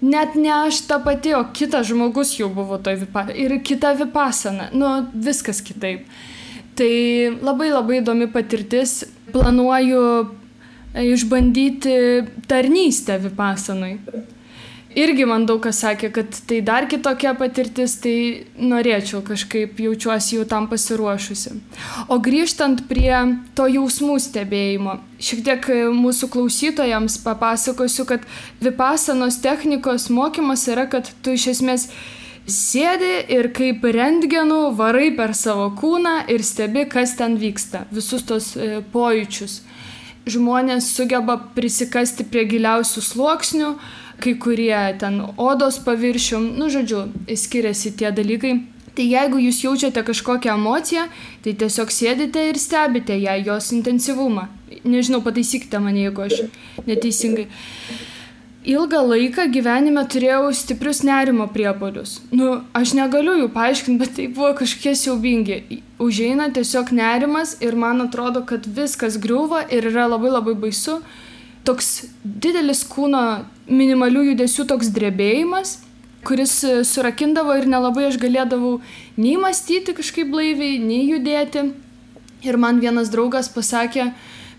net ne aš ta pati, o kitas žmogus jau buvo toj Vipassanoj. Ir kita Vipassana. Viskas kitaip. Tai labai labai įdomi patirtis. Planuoju išbandyti tarnystę Vipassanoj. Irgi man daug kas sakė, kad tai dar kitokia patirtis, tai norėčiau kažkaip, jaučiuosi jau tam pasiruošusi. O grįžtant prie to jausmų stebėjimo, šiek tiek mūsų klausytojams papasakosiu, kad Vipassanos technikos mokymas yra, kad tu iš esmės sėdi ir kaip rentgenu varai per savo kūną ir stebi, kas ten vyksta, visus tos pojūčius. Žmonės sugeba prisikasti prie giliausių sluoksnių, kai kurie ten odos paviršium, žodžiu, skiriasi tie dalykai. Tai jeigu jūs jaučiate kažkokią emociją, tai tiesiog sėdite ir stebite ją, jos intensyvumą. Nežinau, pataisykite mane, jeigu aš neteisingai. Ilgą laiką gyvenime turėjau stiprius nerimo priepuolius. Aš negaliu jų paaiškinti, bet tai buvo kažkokie siaubingi. Užeina tiesiog nerimas ir man atrodo, kad viskas griūva ir yra labai labai baisu. Toks didelis kūno minimalių judesių toks drebėjimas, kuris surakindavo ir nelabai aš galėdavau nei mąstyti kažkaip blaiviai, nei judėti. Ir man vienas draugas pasakė,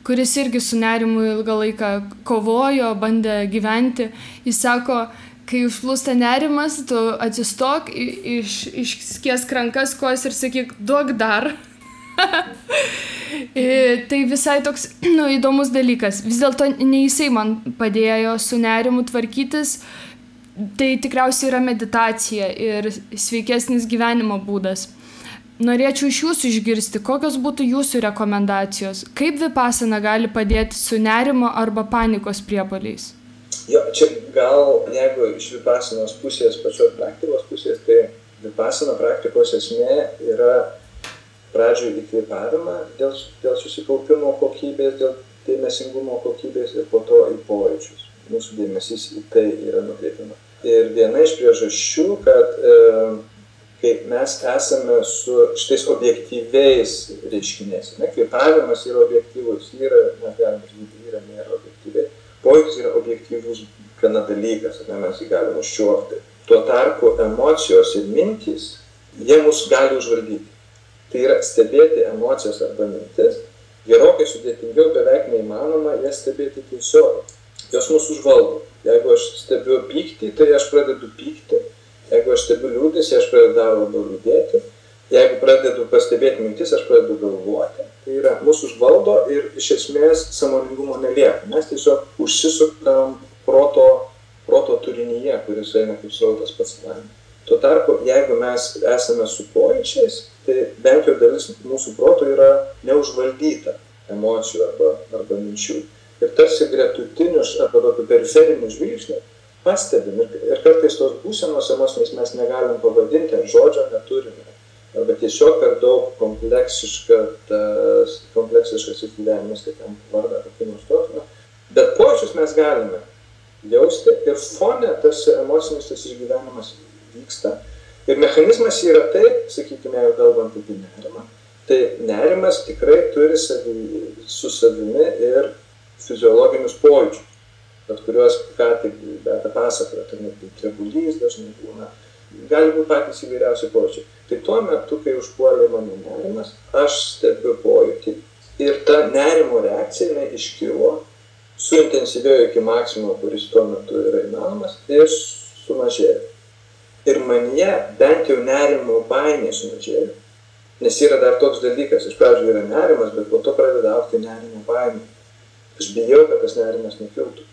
kuris irgi su nerimu ilgą laiką kovojo, bandė gyventi. Jis sako, kai užplūsta nerimas, tu atsistok, išskiesk rankas, kojas ir sakyk, duok dar. Tai visai toks įdomus dalykas. Vis dėlto ne jisai man padėjo su nerimu tvarkytis. Tai tikriausiai yra meditacija ir sveikesnis gyvenimo būdas. Norėčiau iš jūsų išgirsti, kokios būtų jūsų rekomendacijos. Kaip Vipassana gali padėti su nerimo arba panikos priepuoliais? Jo, čia gal, jeigu iš Vipassanos pusės, pačios praktikos pusės, tai Vipassana praktikos esmė yra pradžioje įkvėpavimą dėl susikaupimo kokybės, dėl dėmesingumo kokybės ir po to į pojūčius. Mūsų dėmesys į tai yra nukreipiama. Ir viena iš priežasčių, kad kai mes esame su šitais objektyviais reiškiniais, kvėpavimas yra objektyvus, mes galime žinoti, nėra objektyviai. Pojūtis yra objektyvus gana dalykas, mes jį galime užčiuopti. Tuo tarpu emocijos ir mintys, jie mus gali užvaldyti. Tai yra stebėti emocijas arba mintis, gerokai sudėtingiau, beveik neįmanoma jas stebėti tiesiog. Jos mus užvaldo. Jeigu aš stebiu pyktį, tai aš pradedu pykti. Jeigu aš stebiu liūdesį, aš pradedu dar labiau liūdėti. jeigu pradedu pastebėti mintis, aš pradedu galvoti. Tai yra, mūsų užvaldo ir iš esmės sąmoningumo nelieka. Mes tiesiog užsisukam proto turinyje, kuris eina kaip srautas pats savaime. Tuo tarpu, jeigu mes esame su pojūčiais, tai bent jau dalis mūsų proto yra neužvaldyta emocijų arba minčių. Ir tarsi gretutinius arba tokių periferinių žvilgsnių pastebim. Ir kartais tos būsenos emociniais mes negalim pavadinti, ar žodžio neturime. Arba tiesiog per daug kompleksiškas gyvenimas, kaip ten vardą kokį nors tokį. Bet pojūčius mes galime jausti ir fone tarsi emocinis tas išgyvenimas vyksta. Ir mechanizmas yra taip, sakykime, jau kalbant apie nerimą, tai nerimas tikrai turi su savimi ir fiziologinius pojūčius, kuriuos ką tik pasakojo, tai net trebulys dažnai būna, gali būti patys įvairiausi pojūčiai. Tai tuo metu, kai užpuolė mano nerimas, aš stebiu pojūtį ir ta nerimo reakcija iškilo, suintensyvėjo iki maksimumo, kuris tuo metu yra įmanomas, ir sumažėjo. Ir manyje bent jau nerimo baimė sumažėjo. Nes yra dar toks dalykas, iš pradžių yra nerimas, bet po to pradeda augti nerimo baimė. Aš bijau, kad tas nerimas nekiltų.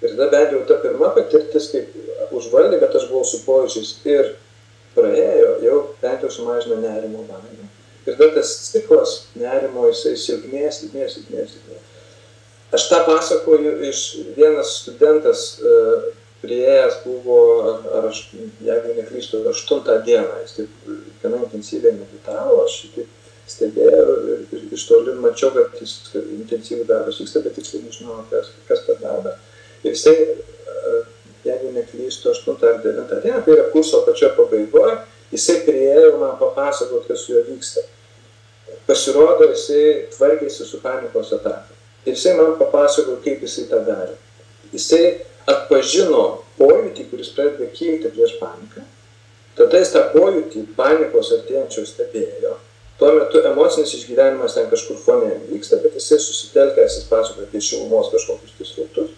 Ir tada bent jau ta pirma patirtis, kaip užvaldė, kad aš buvau su pojūčiais ir praėjo, jau bent jau sumažino nerimo baimę. Ir tada tas ciklas nerimo, jisai silpnės. Aš tą pasakoju iš vienas studentas priėjęs buvo, aš, jeigu neklystu, 8 dieną, jis taip gana intensyviai meditavo, aš taip stebėjau ir iš toli mačiau, kad jis intensyviai darbas vyksta, bet tiksliai nežinau, kas per darbą. Ir jisai, jeigu neklystu, 8 ar 9 dieną, tai yra kurso pačioje pabaigoje, jisai priėjo man papasakoti, kas su juo vyksta. Pasirodo, jisai tvarkėsi su panikos ataka. Ir jisai man papasakojo, kaip jisai tą darė. Jisai atpažino pojūtį, kuris pradeda kilti prieš paniką. Tada jis tą pojūtį panikos artėjančios stebėjo. Tuo metu emocinis išgyvenimas ten kažkur fone vyksta, bet jisai susitelkęs, jis pasakojo apie šilumos kažkokius srautus.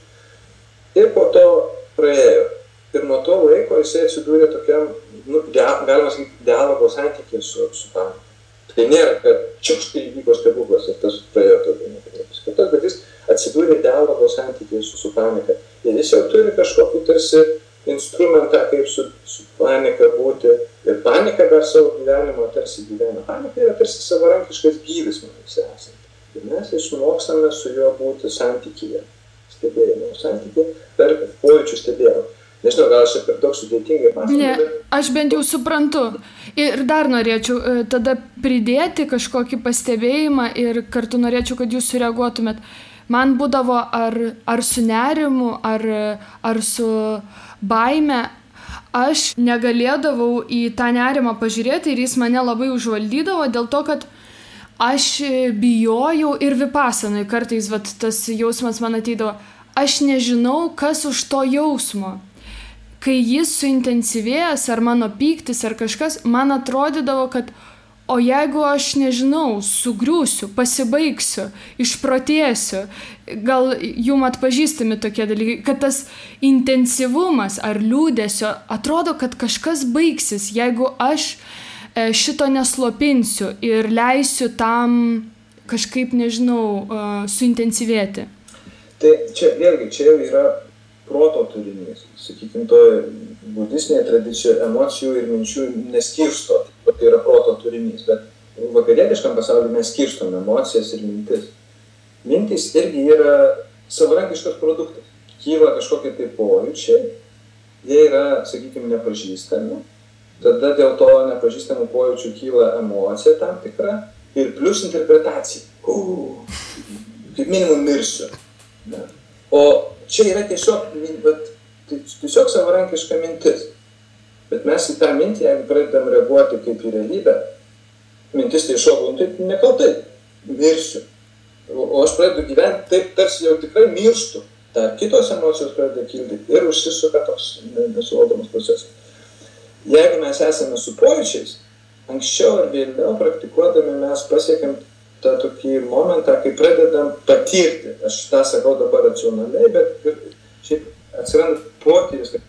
Ir po to praėjo. Ir nuo to laiko jisai atsidūrė tokiam, galima sakyti, dialogo santykiai su panika. Tai nėra, kad čiukštai įvyko stebuklas ir tas praėjo tokį nepatirtis, bet jis atsidūrė dialogo santykiai su panika. Ir jis jau turi kažkokį tarsi instrumentą, kaip su panika būti. Ir panika dar savo gyvenimo tarsi gyvena. Panika yra tarsi savarankiškas gyvis manęs esant. Ir mes išmokstame su juo būti santykyje, stebėjimo santykyje per pojūčių stebėjimą. Nežinau, gal aš per daug sudėtingai pasakyti. Ne, aš bent jau suprantu. Ir dar norėčiau tada pridėti kažkokį pastebėjimą ir kartu norėčiau, kad jūs sureaguotumėt. Man būdavo ar su nerimu, ar su baime, aš negalėdavau į tą nerimą pažiūrėti ir jis mane labai užvaldydavo dėl to, kad aš bijojau ir vipasanai kartais tas jausmas man ateidavo. Aš nežinau, kas už to jausmo. Kai jis suintensyvėjęs, ar mano pyktis, ar kažkas, man atrodydavo, kad o jeigu aš nežinau, sugriūsiu, pasibaigsiu, išprotėsiu, gal jum atpažįstami tokie dalykai, kad tas intensyvumas ar liūdesio atrodo, kad kažkas baigsis, jeigu aš šito neslopinsiu ir leisiu tam kažkaip, nežinau, suintensyvėti. Tai čia vėlgi, čia jau yra proto turinys. Sakykime, toje budistinėje tradicijoje emocijų ir minčių neskirsto, tai yra proto turinys, bet vakarietiškam pasauliu mes skirstom emocijas ir mintis. Mintys irgi yra savarankiškas produktas. Kyla kažkokie tai pojūčiai, jie yra, sakykime, nepažįstami, tada dėl to nepažįstamų pojūčių kyla emocija tam tikra ir plus interpretacija. Kaip minimum mirsiu. Ne? O čia yra tiesiog savarankiška mintis. Bet mes į tą mintį, jeigu pradedam reaguoti kaip į realybę, mintis tai šoku, tai nekaltai, mirsiu. O aš pradedu gyventi taip, tarsi jau tikrai mirštu. Dar kitos emocijos pradeda kilti ir užsisuka toks nesuvaldomas procesas. Jeigu mes esame su pojūčiais, anksčiau ar vėliau praktikuodami mes pasiekėm tą tokį momentą, kai pradedam patirti. Aš tą sakau dabar racionaliai, bet šiaip atsiranda potyris, kad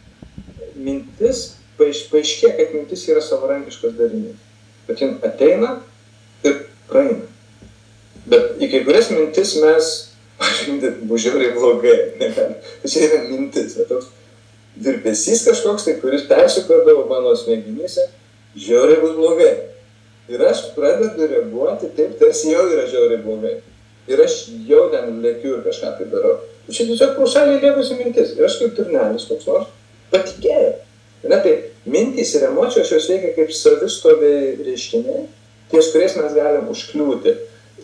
mintis, paaiškėja, kad mintis yra savarankiškas darinys. bet jin ateina ir praeina. Bet į kai kurias mintis mes, bus žiauriai blogai, čia yra mintis, toks virpesys kažkoks, tai kuris persikrodavo mano smegenyse, žiauriai bus blogai. Ir aš pradedu reaguoti taip, tarsi jau yra žiauriai blogai. Ir aš jau ten lėkiu ir kažką tai darau. Ir čia tiesiog paušaliai lėkusi mintis. Ir aš kaip turnelis koks nors patikėjau. Tai mintys ir emocijos jos veikia kaip savistoviai reiškiniai, ties kuriais mes galim užkliūti.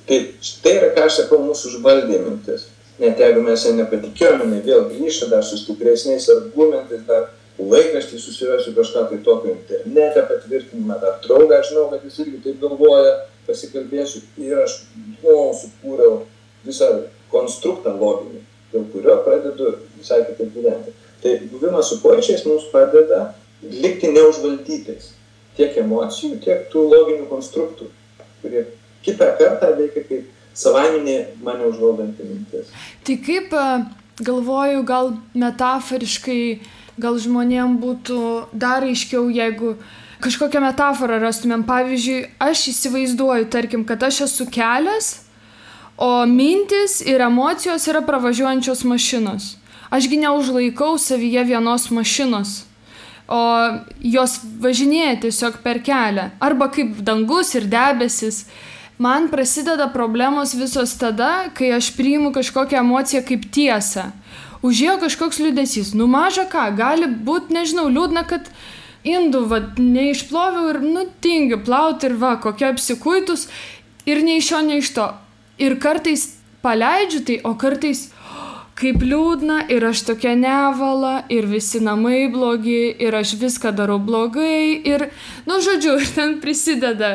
Tai štai yra, ką aš sakau, mūsų užvaldė mintis. Net jeigu mes ją nepatikėjome, vėl grįžta dar su stipresniais argumentais, dar laikraštį susirasiu kažką tai tokio internete patvirtinimą, dar draugą, aš žinau, kad jis irgi taip galvoja, pasikalbėsiu ir aš sukūriau visą konstruktą loginį, dėl kurio pradedu visai kitaip gyventi. Tai buvimas su pojūčiais mums padeda likti neužvaldytais tiek emocijų, tiek tų loginių konstruktų, kurie kitą kartą veikia kaip savaiminė mane užvaldanti mintis. Tai kaip, galvoju, gal metaforiškai, gal žmonėm būtų dar aiškiau, jeigu kažkokią metaforą rastumėm. Pavyzdžiui, aš įsivaizduoju, tarkim, kad aš esu kelias, o mintis ir emocijos yra pravažiuojančios mašinos. Ašgi neužlaikau savyje vienos mašinos, o jos važinėja tiesiog per kelią. Arba kaip dangus ir debesis. Man prasideda problemos visos tada, kai aš priimu kažkokią emociją kaip tiesą. Užėjo kažkoks liūdesys. Maža ką, gali būti, nežinau, liūdna, kad indų neišploviau ir tingiu plauti ir kokia apsikuitus ir nei iš šio, nei iš to. Ir kartais paleidžiu tai, o kartais kaip liūdna ir aš tokia nevala ir visi namai blogi ir aš viską darau blogai ir, žodžiu, ir ten prisideda,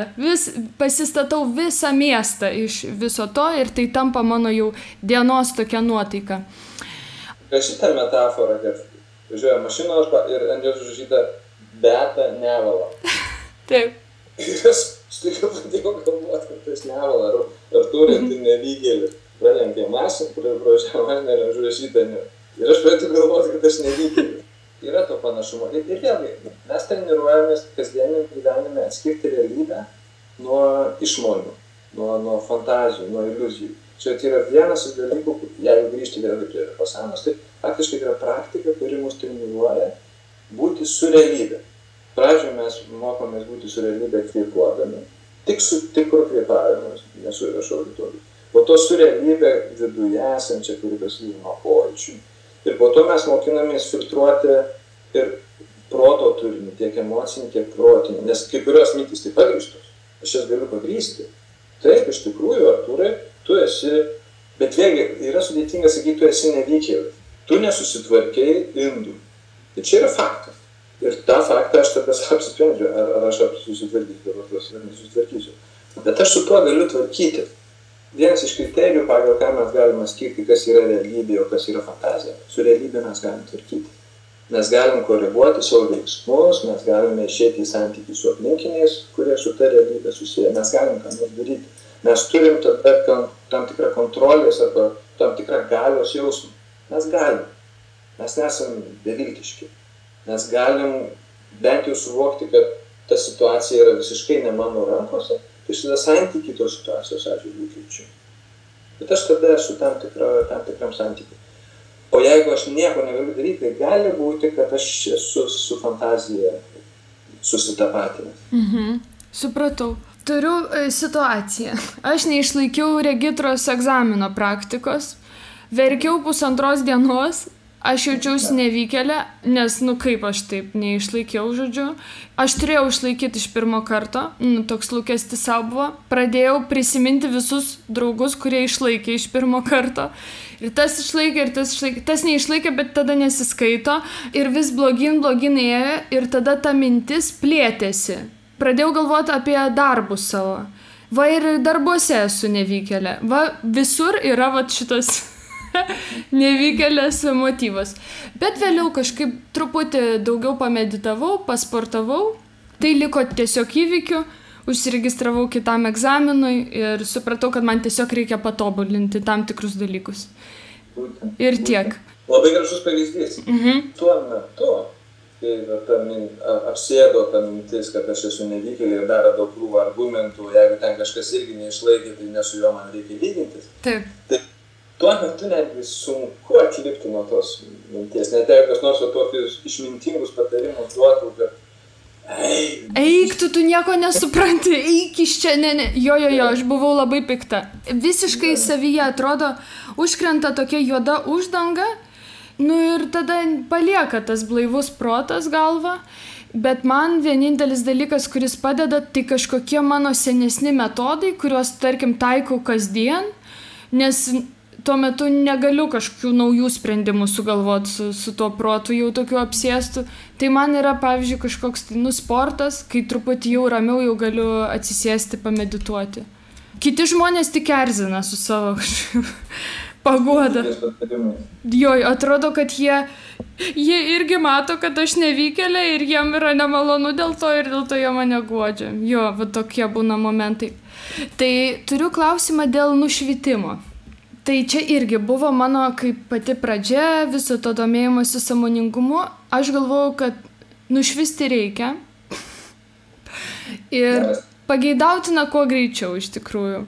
pasistatau visą miestą iš viso to ir tai tampa mano jau dienos tokia nuotaika. Šitą metaforą, kad važiuoja mašina ir ant jos užrašyta Beata nevala. Taip. Ir aš staiga pradėjau galvoti, kad tas nevala, ar turinti nevykėlį. Pralenkė mašiną, kur pražiavo mašiną ir užrašyta ne. Ir aš pradėjau galvoti, kad aš nevykėliu. Yra to panašumo. Ir vėlgi, mes treniruojamės kasdieniam gyvenime atskirti realybę nuo išmonių, nuo fantazijų, nuo iliuzijų. Čia yra vienas iš dalykų, jeigu grįžti vėlgi prie pasanos, tai faktiškai yra praktika, kuri mus treniruoja būti su realybė. Pradžioje mes mokomės būti su realybė kvėpuodami, tik su tikru kvėpavimu, nesu viešo auditorijų. Po to su realybė viduje esančia, kuri prasideda nuo pojūčių. Ir po to mes mokinamės filtruoti ir proto turinį, tiek emocinį, tiek protinį. Nes kai kurios mintys tai pagrįstos. Aš jas galiu pagrįsti. Taip, iš tikrųjų, Artūrai, tu esi, bet vėlgi yra sudėtinga sakyti, tu esi nevykėlis. Tu nesusitvarkei indų. Tai čia yra faktas. Ir tą faktą aš tada apsisprendžiu, ar aš susitvarkysiu, ar nesusitvarkysiu. Bet aš su tuo galiu tvarkyti. Vienas iš kriterijų, pagal ką mes galime skirti, kas yra realybė, o kas yra fantazija. Su realybė mes galim tvarkyti. Mes galim koreguoti savo veiksmus, mes galime išėti į santykį su aplinkiniais, kurie su ta realybė susiję. Mes galim ką nors daryti. Mes turim tada tam tikrą kontrolės arba tam tikrą galios jausmą. Mes galim. Mes nesam beviltiški. Mes galim bent jau suvokti, kad ta situacija yra visiškai ne mano rankose. Tai aš tada santykį tos situacijos atžvilgiu keičiu. Bet aš tada esu tam tikram santykiui. O jeigu aš nieko negaliu daryti, tai gali būti, kad aš esu su fantazija susitapatinęs. Supratau. Turiu situaciją. Aš neišlaikiau regitros egzamino praktikos. Verkiau 1,5 dienos. Aš jaučiausi nevykėlė, nes, kaip aš taip neišlaikiau, žodžiu. Aš turėjau išlaikyti iš pirmo karto, toks lūkestis savo buvo. Pradėjau prisiminti visus draugus, kurie išlaikė iš pirmo karto. Ir tas išlaikė, ir tas išlaikė. Tas neišlaikė, bet tada nesiskaito. Ir vis blogyn ėjo, ir tada ta mintis plėtėsi. Pradėjau galvoti apie darbus savo. Ir darbuose esu nevykėlė. Visur yra šitas nevykėlės motyvas. Bet vėliau kažkaip truputį daugiau pameditavau, pasportavau. Tai liko tiesiog įvykiu, užsiregistravau kitam egzaminui ir supratau, kad man tiesiog reikia patobulinti tam tikrus dalykus. Ir tiek. Labai gražus pavyzdys. Tuo metu kai apsėdo ta mintis, kad aš esu nevykėlė ir dar daug krūvą argumentų, jeigu ten kažkas irgi neišlaikė, tai ne su juo man reikia lygintis. Taip. Tai tuo metu netgi sunku atlipti nuo tos minties, net jeigu kas nors tokius išmintingus patarimus duotų, kad eik, tu nieko nesupranti, eik iš čia, ne. Jo, aš buvau labai pikta. Visiškai savyje atrodo, užkrenta tokia juoda uždanga, ir tada palieka tas blaivus protas galva, bet man vienintelis dalykas, kuris padeda, tai kažkokie mano senesni metodai, kuriuos, tarkim, taikau kasdien, nes tuo metu negaliu kažkokių naujų sprendimų sugalvoti su tuo protu jau tokiu apsėstu. Tai man yra, pavyzdžiui, kažkoks sportas, kai truputį jau ramiau jau galiu atsisėsti, pamedituoti. Kiti žmonės tik erzina su savo paguoda. Jo, atrodo, kad jie irgi mato, kad aš nevykėlė ir jiem yra nemalonu dėl to ir dėl to jie mane guodžia. Jo, va tokie būna momentai. Tai turiu klausimą dėl nušvitimo. Tai čia irgi buvo mano kaip pati pradžia viso to domėjimosi sąmoningumu. Aš galvojau, kad nušvisti reikia ir pageidautina kuo greičiau iš tikrųjų.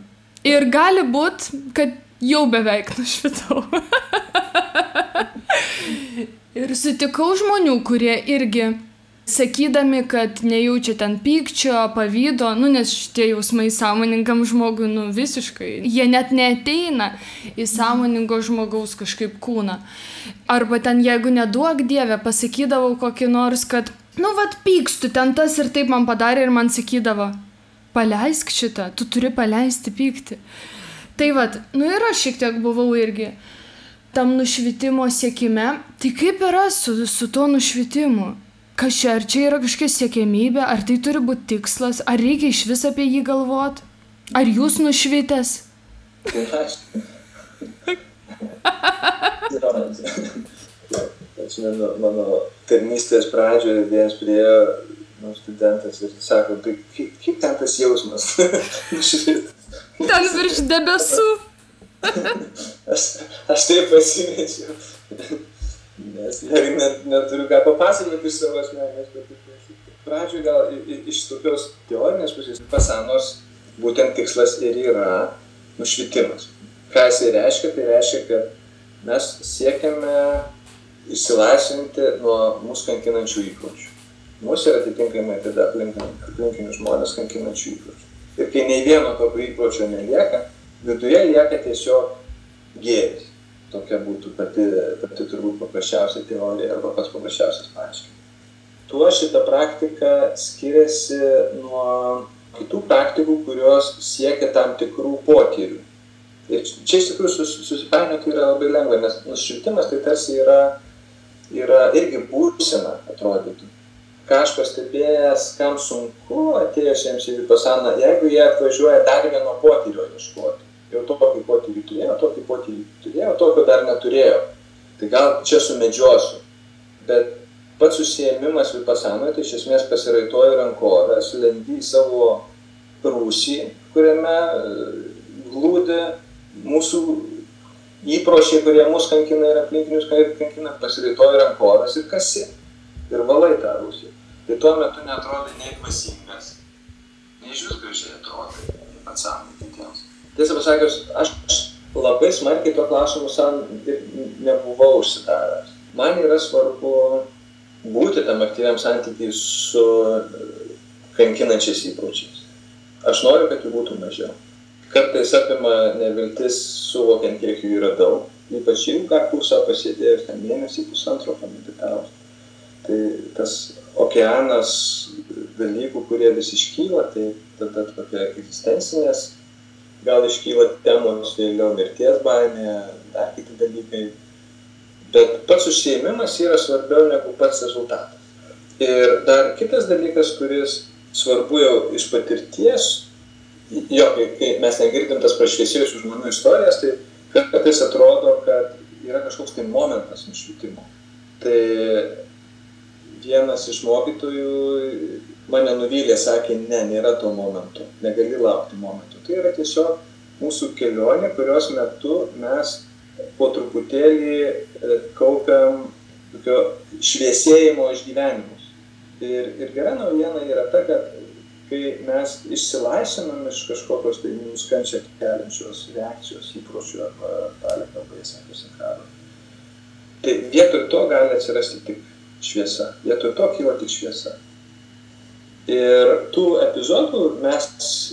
Ir gali būt, kad jau beveik nušvitau. Ir sutikau žmonių, kurie irgi sakydami, kad nejaučia ten pykčio, pavydo, nes šitie jausmai sąmoningam žmogui, visiškai, jie net neateina į sąmoningo žmogaus kažkaip kūną. Arba ten, jeigu neduok Dieve, pasakydavau kokį nors, kad, pykstu, ten tas ir taip man padarė ir man sakydavo, paleisk šitą, tu turi paleisti pyktį. Tai ir aš šiek tiek buvau irgi tam nušvitimo siekime. Tai kaip yra su tuo nušvitimu? Kas čia, ar čia yra kažkokia siekiamybė, ar tai turi būti tikslas, ar reikia iš vis apie jį galvoti? Ar jūs nušvitęs? Mano tarnystės pradžioje vienas priėjo studentas ir sako, tai kaip ten tas jausmas? Ten virš debesų. Aš taip pasimečiau. Nes neturiu ką papasakoti iš savo asmenės patirties. Pradžioje gal iš tokios teorinės pusės pasanos būtent tikslas ir yra nušvitimas. Ką jis reiškia? Tai reiškia, kad mes siekiame išsilaisvinti nuo mūsų kankinančių įpročių. Mūsų yra atitinkamai tada aplinkinių žmonės kankinančių įpročių. Ir kai nei vieno tokio įpročio nelieka, viduje lieka tiesiog gėris. Tokia būtų pati turbūt paprasčiausia teorija arba pats paprasčiausias paaiškinimas. Tuo šita praktika skiriasi nuo kitų praktikų, kurios siekia tam tikrų potyrių. Ir čia iš tikrųjų susipainioti yra labai lengva, nes nušvitimas tai tarsi yra irgi būsena, atrodytų. Ką aš pastebėjęs, kam sunku atėjusiems į vipasaną, jeigu jie atvažiuoja dar vieno potyrio ieškoti. Jau tokį potyrį turėjo, tokio dar neturėjo. Tai gal čia sumedžiosiu. Bet pats užsiėmimas vipasanoje, tai iš esmės pasiraitoji rankovę, sulendi į savo rūsį, kuriame glūdi mūsų įpročiai, kurie mus kankina ir aplinkinius kankina, pasiraitoji rankovės ir kasi. Ir valai tą rūsį. Tai tuo metu neatrodai nei dvasingas, nei iš vis gražiai atrodai atsakymai kitiems. Tiesą pasakius, aš labai smarkiai tuo klausimu nebuvau užsidaręs. Man yra svarbu būti tam aktyviam santykiai su kankinančiais įpročiais. Aš noriu, kad jų būtų mažiau. Kartais apima neviltis suvokiant, kiek jų yra daug. Ypač ilgą kursą pasėdėjus, ten mėnesį pusantro pameditavus. Tai tas okeanas dalykų, kurie vis iškyla, tai tada tokia egzistencinės gal iškyla temos, vėliau mirties baimė, dar kiti dalykai. Bet pats užsiėmimas yra svarbiau negu pats rezultatas. Ir dar kitas dalykas, kuris svarbu jau iš patirties, kai mes negirdim tas prašviesėjusių žmonių istorijas, tai kartais atrodo, kad yra kažkoks tai momentas nušvitimo. Tai vienas iš mokytojų mane nuvylė, sakė, nėra to momento, negali laukti momento. Tai yra tiesiog mūsų kelionė, kurios metu mes po truputėlį kaupiam tokio šviesėjimo išgyvenimus. Ir gera naujiena yra ta, kad kai mes išsilaisvinam iš kažkokios tai mums kančią keliančios reakcijos, įpročių arba dalį kalbai sakius karo, tai vietoj to gali atsirasti tik šviesa. Vietoj to kyla tik šviesa. Ir tų epizodų mes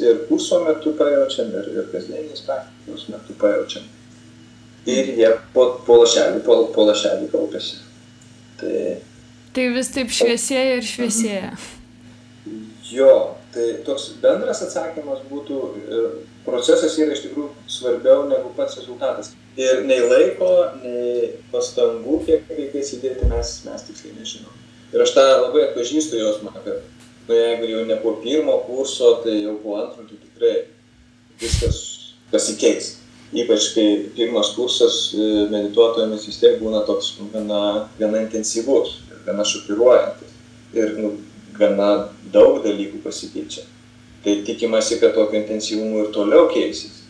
ir kurso metu pajaučiam, ir kasdieniais praktikos metu pajaučiam. Ir jie po lašelį kaupiasi. Tai vis taip šviesėja ir šviesėja. Jo, tai toks bendras atsakymas būtų, procesas yra iš tikrųjų svarbiau negu pats rezultatas. Ir nei laiko, nei pastangų, kiek reikia įsidėti, mes tiksliai nežinom. Ir aš tą labai atpažįstu jausmą, kad jeigu jau ne po pirmo kurso, tai jau po antro, tai tikrai viskas pasikeis. Ypač kai pirmas kursas medituotojams vis tiek būna toks gana intensyvus, gana šokiruojantis ir gana daug dalykų pasikeičia. Tai tikimasi, kad tokio intensyvumo ir toliau keisis.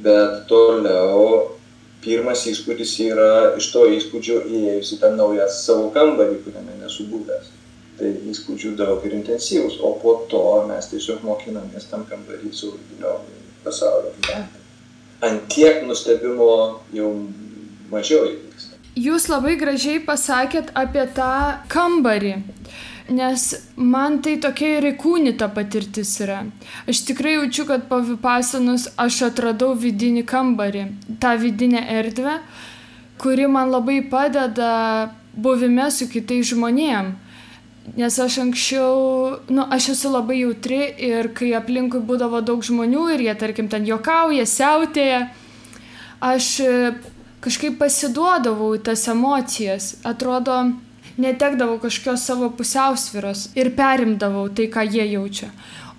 Bet toliau pirmas įspūdis yra iš to įspūdžio įėjus į tą naują savo kambarį, kuriame nesu buvęs. Tai įspūdžių daug ir intensyvus, o po to mes tiesiog mokinamės tam kambarį su giliau pasaulio gyventi. Ant tiek nustebimo jau mažiau įvyksta. Jūs labai gražiai pasakėt apie tą kambarį, nes man tai tokia ir įkūnyta patirtis yra. Aš tikrai jaučiu, kad po vipasanos aš atradau vidinį kambarį, tą vidinę erdvę, kuri man labai padeda buvime su kitais žmonėm. Nes aš anksčiau, aš esu labai jautri ir kai aplinkui būdavo daug žmonių ir jie, tarkim, ten juokauja, siautėja, aš kažkaip pasiduodavau į tas emocijas. Atrodo, netekdavau kažkokios savo pusiausvyros ir perimdavau tai, ką jie jaučia.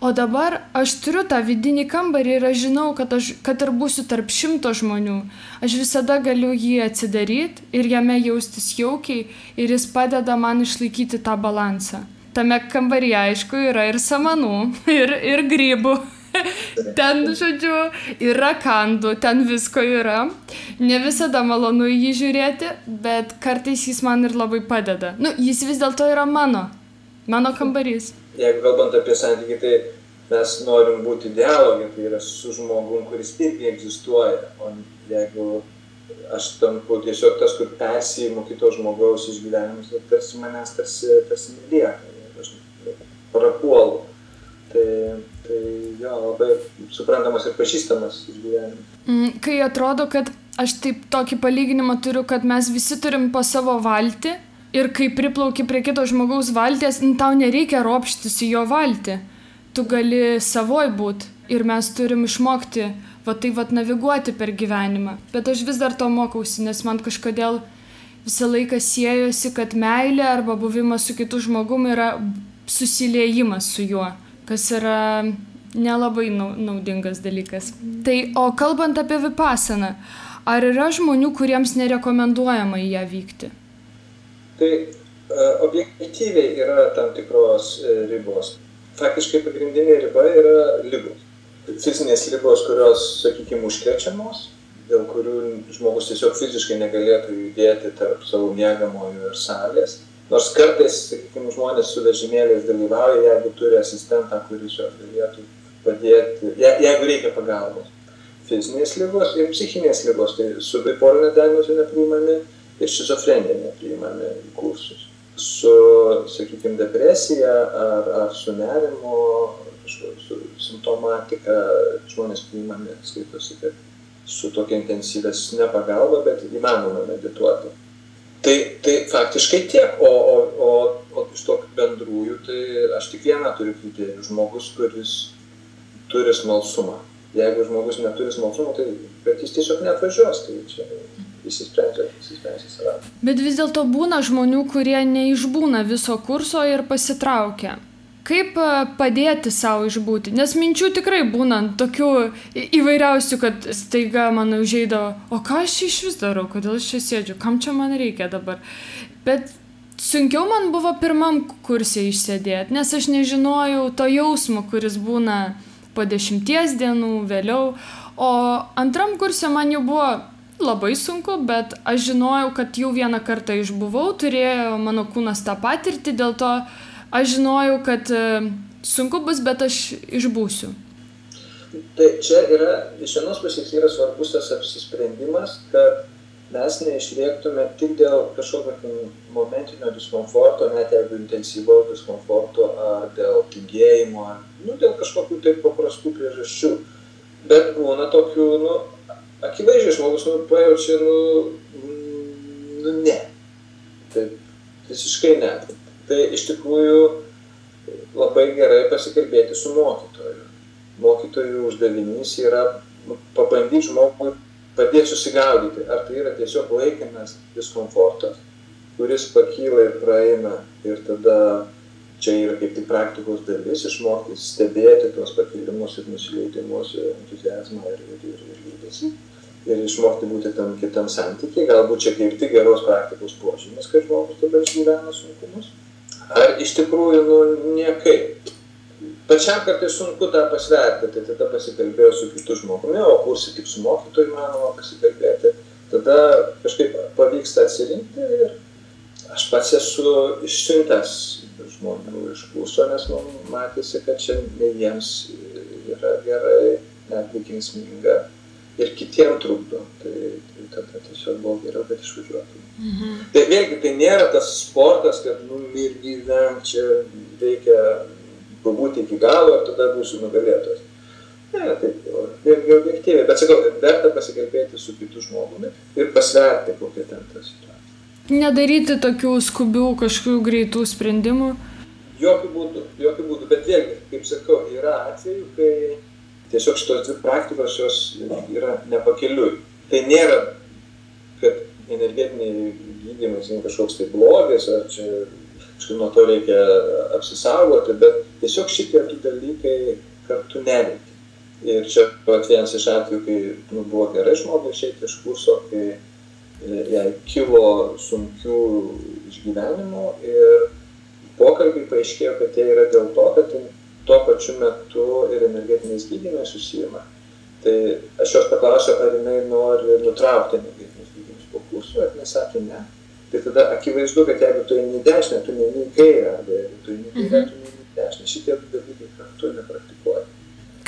O dabar aš turiu tą vidinį kambarį ir aš žinau, kad ir būsiu tarp 100 žmonių. Aš visada galiu jį atsidaryti ir jame jaustis jaukiai ir jis padeda man išlaikyti tą balansą. Tame kambaryje, aišku, yra ir samanų, ir grybų. Ten, žodžiu, ir rakandų, ten visko yra. Ne visada malonu jį žiūrėti, bet kartais jis man ir labai padeda. Jis vis dėlto yra mano kambarys. Jeigu kalbant apie santykį, tai mes norim būti dialogė, tai yra su žmogum, kuris irgi egzistuoja. O jeigu aš tampu tiesiog tas, kur persiimu kito žmogaus išgyvenimus, tai tarsi manęs tarsi nelieka, aš prapuolu. Tai jo, labai suprantamas ir pažįstamas išgyvenimas. Kai atrodo, kad aš taip tokį palyginimą turiu, kad mes visi turim po savo valtį, ir kai priplauki prie kito žmogaus valties, tau nereikia ropštis į jo valtį. Tu gali savoj būt ir mes turim išmokti naviguoti per gyvenimą. Bet aš vis dar to mokausi, nes man kažkodėl visą laiką siejosi, kad meilė arba buvimas su kitu žmogum yra susiliejimas su juo, kas yra nelabai naudingas dalykas. Tai, o kalbant apie vipasaną, ar yra žmonių, kuriems nerekomenduojama į ją vykti? Tai objektyviai yra tam tikros ribos. Faktiškai pagrindinė riba yra ligos. Fizinės ligos, kurios, sakykime, užkrečiamos, dėl kurių žmogus tiesiog fiziškai negalėtų judėti tarp savo miegamojo ir salės. Nors kartais, sakykime, žmonės su vežimėliais dalyvauja, jeigu turi asistentą, kuris juos galėtų padėti, jeigu reikia pagalbos. Fizinės ligos ir psichinės ligos, tai su bipolinė diagnozė nepriimami ir šizofrenija nepriimami į kursus. Su, sakykime, depresija ar su nerimo, su simptomatika žmonės priimami, skaitosi, kad su tokia intensyvesnė pagalba, bet įmanoma medituoti. Tai faktiškai tiek, o iš to bendrųjų, tai aš tik vieną turiu kriterijų, žmogus, kuris turi smalsumą. Jeigu žmogus neturi smalsumo, tai bet jis tiesiog neatvažiuos, tai čia įsisprendžia save. Bet vis dėlto būna žmonių, kurie neišbūna viso kurso ir pasitraukia. Kaip padėti savo išbūti? Nes minčių tikrai būna tokių įvairiausių, kad staiga man užeidavo, o ką aš iš vis darau, kodėl aš čia sėdžiu, kam čia man reikia dabar. Bet sunkiau man buvo pirmam kurse išsėdėti, nes aš nežinojau to jausmo, kuris būna po 10 dienų vėliau. O antram kurse man jau buvo labai sunku, bet aš žinojau, kad jau vieną kartą išbuvau, turėjo mano kūnas tą patirtį, dėl to aš žinojau, kad sunku bus, bet aš išbūsiu. Tai čia yra, iš vienos pusės yra svarbus tas apsisprendimas, kad mes neišrėktume tik dėl kažkokio momentinio diskomforto, net jeigu intensyvaus diskomforto, ar dėl tingėjimo, ar dėl kažkokių taip paprastų priežasčių. Bet būna tokių, akivaizdžiai žmogus, pajaučia, ne. Taip, visiškai ne. Tai iš tikrųjų labai gerai pasikalbėti su mokytoju. Mokytojų uždavinys yra pabandyti žmogui padėti susigaudyti, ar tai yra tiesiog laikinas diskomfortas, kuris pakyla ir praeina, ir tada čia yra kaip tik praktikos dalis, išmokti stebėti tuos pakilimus ir nusileidimus, entuziazmą ir liūdesį, ir išmokti būti tam kitam santykiai, galbūt čia kaip tik geros praktikos požymis, kad žmogus tada išgyvena sunkumus, ar iš tikrųjų, niekaip. Pačiam kartais sunku tą pasverti, tai tada pasikalbėjau su kitu žmogumi, o kursi tik su mokytoju manoma pasikalbėti, tada kažkaip pavyksta atsirinkti ir aš pats esu išsiuntęs žmonių iš kurso, nes man matėsi, kad čia ne jiems yra gerai, netgi kenksminga ir kitiem trukdo, tai tada tiesiog buvo geriau, kad išvažiuotų. Tai vėlgi, tai nėra tas sportas, kad ir gyvenk, čia reikia pabūti iki galo ir tada būsiu nugalėtojas. Ne, taip, vėlgi objektyviai, bet sakau, verta pasikalbėti su kitu žmogumi ir pasverti, kokia ten ta situacija. Nedaryti tokių skubių kažkokių greitų sprendimų? Jokių būdų, bet vėlgi, kaip sakau, yra atvejų, kai tiesiog šitos dvi praktikos jos yra nepakeliui. Tai nėra, kad energetiniai gydymai kažkoks tai blogis, ar čia nuo to reikia apsisaugoti, bet tiesiog šitie du dalykai kartu neveikia. Ir čia vienas iš atvejų, kai buvo gerai žmogui išeiti iš kurso, kai jai kilo sunkių išgyvenimų ir pokalbiai paaiškėjo, kad tai yra dėl to, kad tuo pačiu metu ir energetiniais gydymais susijama. Tai aš jos paklausiau, ar jinai nori nutraukti energetinius gydymus po kurso, ar jinai sakė ne. Tai tada akivaizdu, kad jeigu tu eini į dešinę, tu neini į kairę, arba jeigu tu eini į kairę, tu neini į dešinę. Šitie dalykai kartu nepraktikuoja.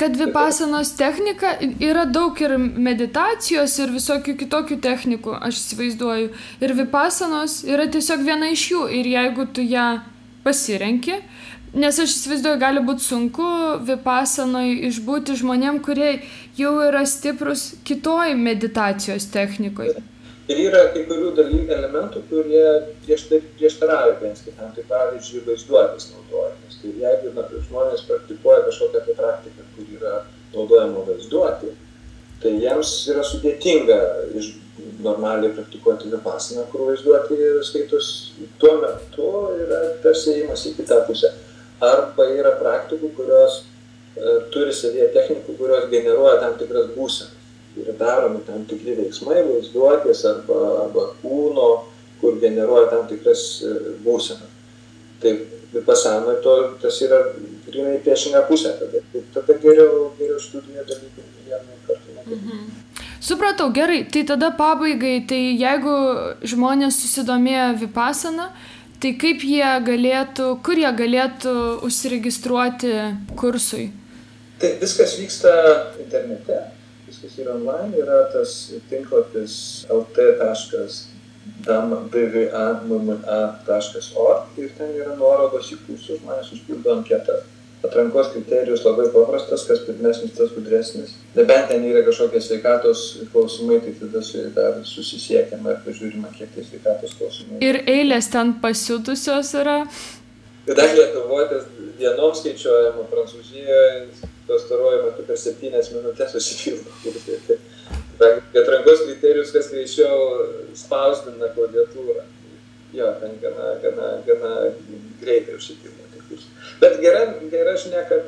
Kad vipasanos technika yra daug ir meditacijos ir visokių kitokių technikų, aš įsivaizduoju. Ir vipasanos yra tiesiog viena iš jų. Ir jeigu tu ją pasirenki, nes aš įsivaizduoju, gali būti sunku vipasanoje išbūti žmonėm, kurie jau yra stiprus kitoj meditacijos technikoje. Ir yra kai kurių dalykų elementų, kurie prieštarauja vienas kitam, tai pavyzdžiui vaizduotės naudojimas. Tai jeigu žmonės praktikuoja kažkokią tai praktiką, kur yra naudojama vaizduotė, tai jiems yra sudėtinga normaliai praktikuoti vipasaną, kur vaizduotė skaitos tuo metu yra tarsi ėjimas į kitą pusę. Arba yra praktikų, kurios turi savyje technikų, kurios generuoja tam tikras būsenas. Yra daromi tam tikri veiksmai, vaizduotės arba kūno, kur generuoja tam tikras būsenas. Tai vipasanoje tas yra grynai priešinga pusė. Tada geriau studijų dalykų vienu kartu negali. Supratau, gerai. Tai tada pabaigai, tai jeigu žmonės susidomėjo vipasana, tai kaip kur jie galėtų užsiregistruoti kursui? Tai viskas vyksta internete. Viskas yra online, yra tas tinklapis lt.bva.org ir ten yra nuorodos į kursus, žmonės užpildo anketą. Atrankos kriterijus labai paprastas, kas pirmesnis, tas gudresnis. Nebent ten yra kažkokie sveikatos klausimai, tai tada dar susisiekiama ir pažiūrima, kiek tai sveikatos klausimai. Ir eilės ten pasiutusios yra? Kadangi Lietuvoje tas dienom skaičiuojama, Prancūzijoje pastaruoju metu per 7 minutės susipildo. Atrankos kriterijus, kas greičiau spausdina klaviatūrą. Jo, ten gana greitai užsipildo. Bet gera žinia, kad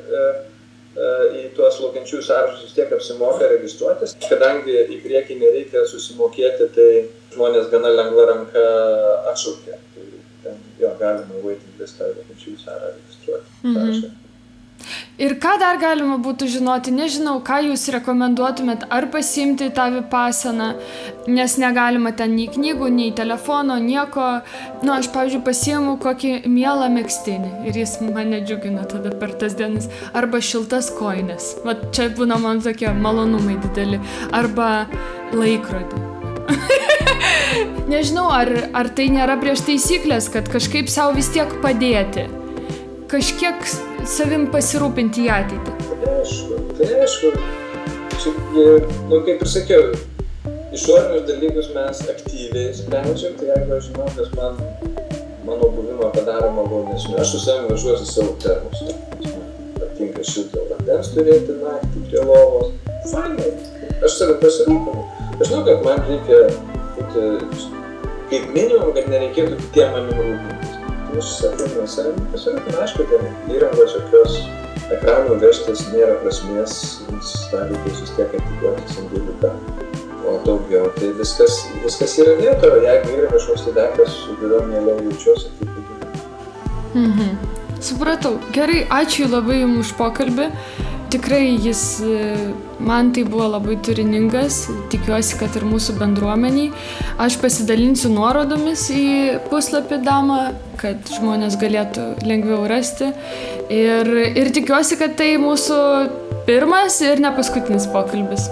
į tuos laukiančiųjų sąrašus vis tiek apsimoka registruotis. Kadangi į priekį nereikia susimokėti, tai žmonės gana lengva ranka atšaukia. Tai ten galima waiting listą laukiančiųjų sąrašą registruoti. Ir ką dar galima būtų žinoti, nežinau, ką jūs rekomenduotumėt, ar pasiimti tą vipasaną, nes negalima ten nei knygų, nei telefono, nieko. Aš, pavyzdžiui, pasiimu kokį mielą megztinį ir jis mane džiugina tada per tas dienas. Arba šiltas kojines, čia būna man tokie malonumai dideli, arba laikrodį. Nežinau, ar tai nėra prieš taisyklės, kad kažkaip savo vis tiek padėti. Kažkiek savim pasirūpinti į ateitį. Tai aišku. Kaip ir sakiau, išorinius dalykus mes aktyviai sprendžiam, tai jeigu aš žinau, kas mano buvimą padaro malonesniu, aš su savim važiuosiu savo termosą. Patinka šilto vandens turėti naktį prie lovos. Fainai. Aš savim pasirūpinu. Aš žinau, kad man reikia būti, kaip minimum, kad nereikėtų kitiem manim rūpintis. Aš savim pasirūpinu, aišku, ten įrangos jokios ekranų vežtis nėra prasmės, tą reikės vis tiek atiduoti sandėliuką, o daugiau, tai viskas yra vietoje, jeigu yra kažkoks tai daiktas, su kuriuo mieliau jaučiuosi, tai padėti. Supratau. Gerai, ačiū labai jums už pokalbį. Tikrai man tai buvo labai turiningas, tikiuosi, kad ir mūsų bendruomeniai. Aš pasidalinsiu nuorodomis į puslapį Dama, kad žmonės galėtų lengviau rasti. Ir tikiuosi, kad tai mūsų pirmas ir ne paskutinis pokalbis.